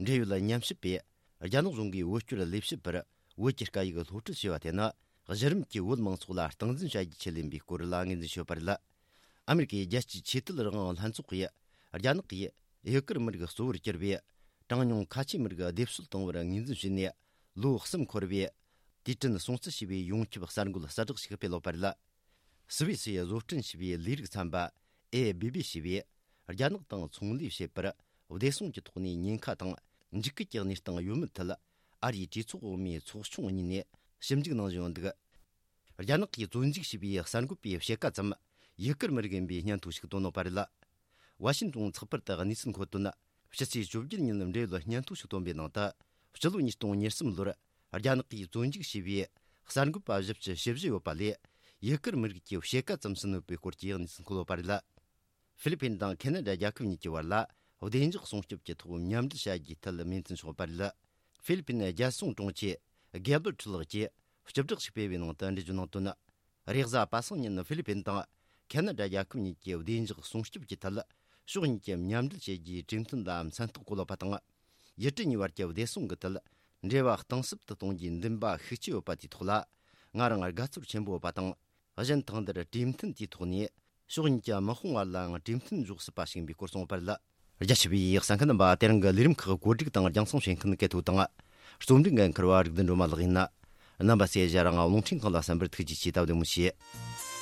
འབྲེལ་ཡོད་ཉམས་ཞིབ་པས་རྒྱ་ནག་གཞུང་གིས་བོད་སྐྱོར་ལས་བྱེད་པར་བོད་ཀྱི་སྐད་ཡིག་སློབ་ཁྲིད་བྱས་པ་དེ་ནི། གཞི་རིམ་གྱི་བོད་མང་ཚོགས་ལ་སྟངས་འཛིན་བྱ་རྒྱུའི་ཆེད་ཡིན་པའི་སྐོར་ལ་ངོས་འཛིན་བྱས་ཡོད་པ་རེད། ཨ་མི་རི་ཀའི་རྒྱལ་སྤྱིའི་ཆོས་དད་རང་དབང་ལྷན་ཚོགས་ཀྱིས་རྒྱ་ནག་གིས་ཡུ་གུར་མི་རིགས་གཙོ་བོར་གྱུར་པའི་གྲངས་ཉུང་ཁ་ཆེ་མི་རིགས་སྡེབ་གསོད་བཏང་བར་ངོས་འཛིན་བྱས་ནས། ལོ་གསུམ་འཁོར་བའི་དུས་དྲན་སྲུང་བརྩི་ཞེས་པའི་ཡོངས་ཁྱབ་གསར་འགོད་གསལ་བསྒྲགས་ཤིག་སྤེལ་ཡོད་པ་རེད། སུད་སི་ཡིས་བཟོ་སྐྲུན་བྱས་པའི་ལས་རིགས་ཚན་པ་ཨེ་བི་བི་ཞེས་པས། རྒྱ་ནག་དང་ཚོང་ལས་བྱེད་པར་བདེ་སྲུང་གི་ཐོག་ནས་ཉེན་ཁ་དང་འཇིགས་སྐུལ་གྱི་གནས་སྟངས་ཡོད་མེད་ཐད། ཨ་རིའི་གྲོས་ཚོགས་འོག་མའི་ཚོགས་ཆུང་གཉིས་ནས་ཞིབ་འཇུག་གནང་བཞིན་ཡོད་འདུག། རྒྱ་ནག་གིས་བཙོན་འཇུག་བྱས་པའི་གསར་འགོད་པའི་ཕྱེད་ཀ་ཙམ་ཡུ་གུར་མི་རིགས་ཡིན་པའི་སྙན་ཐོ་ཞིག་བཏོན་ཡོད་པ་རེད། ཝ་ཤིན་ཏོན་ཚགས་པར་དུ་གནས་ཚུལ་འཁོད་དོན། ཕྱི་ཚེས་བཅོ་བརྒྱད་ཉིན་འབྲེལ་ཡོད་སྙན་ཐོ་ཞིག་བཏོན་པའི་ནང་དུ། སྤྱི་ལོ་ཉིས་སྟོང་ཉེར་གསུམ་ལོར་རྒྱ་ནག་གིས་བཙོན་འཇུག་བྱས་པའི་གསར་འགོད་པ་བཞི་བཅུ་ཞེ་བཞི་ཡོད་པ་ལས། ཡུ་གུར་མི་རིགས་ཀྱི་ཕྱེད་ཀ་ཙམ་ཟིན་ཡོད་པའི་སྐོར་གྱི་གནས་ཚུལ་འཁོད་ཡོད་པ་རེད། ཧྥི་ལི་ཕིན་དང་ཁེ་ན་ཌ་རྒྱལ་ཁབ་གཉིས་ཀྱི་བར་ལ་བདེ་འཇགས་སྲུང་སྐྱོབ་ཀྱི་ཐོག་མཉམ་འབྲེལ་བྱ་རྒྱུའི་ཐད་མོས་མཐུན་བྱུང་ཡོད་པ་རེད། ཧྥི་ལི་ཕིན་རྒྱལ་སྲུང་དྲུང་ཆེ་གེ་བར་ཁྲི་ལགས་ཀྱིས་སྤྱི་བསྒྲགས་ཤིག་སྤེལ་བའི་ནང་དུ་འགྲེལ་བརྗོད་གནང་དོན། རེས་གཟའ་པ་སངས་ཉིན་ཧྥི་ལི་ཕིན་དང་ཁེ་ན་ཌ་རྒྱལ་ཁབ་གཉིས་ཀྱི་བདེ་འཇགས་སྲུང་སྐྱོབ་ཀྱི་ཐད་ཕྱོགས་གཉིས་ཀྱི་མཉམ་འབྲེལ་བྱེད་རྒྱུའི་གྲོས་མཐུན་ལ་མཚན་རྟགས་བཀོད་ཡོད་པ་དང་། ཡུལ་གྲུ་གཉིས་བར་གྱི་བདེ་སྲུང་གི་ཐད་འབྲེལ་བ་གཏིང་ཟབ་ཏུ་གཏོང་རྒྱུའི་འདུན་པ་ཤུགས་ཆེ་ཡོད་པ་དེའི་ཐོག་ལ་ང་རང་དགའ་ཚོར་ཆེན་པོ་ཡོད་པ་དང་། གཞན་དང་འདིར་གྲོས་མཐུན་དེའི་ཐོག་ནས་ཕྱོགས་གཉིས་ཀྱི་དམག་དཔུང་བར་ལའང་གྲོས་མཐུན་འཇོག་སྲིད་པ་ཞིག་ཡིན་པའི་སྐོར་གསུངས་ཡོད་པ་རེད། རྒྱ་ཆེ་བའི་གསན་མཁན་རྣམ་པ། དེ་རིང་གི་ལས་རིམ་ཁག་གོ་སྒྲིག་དང་རྒྱང་སྲིང་བྱེད་མཁན་སྐལ་ཐོ་དང་། རྩོམ་སྒྲིག་འགན་འཁུར་བ་རིག་ལྡན་སྒྲོལ་མ་ལགས་ཡིན། རྣམ་པ་ཚོས་ང་རང་རླུང་འཕྲིན་ཁང་ལ་གསན་པར་ཐུགས་རྗེ་ཆེ། ད་བདེ་མོ་བྱོས།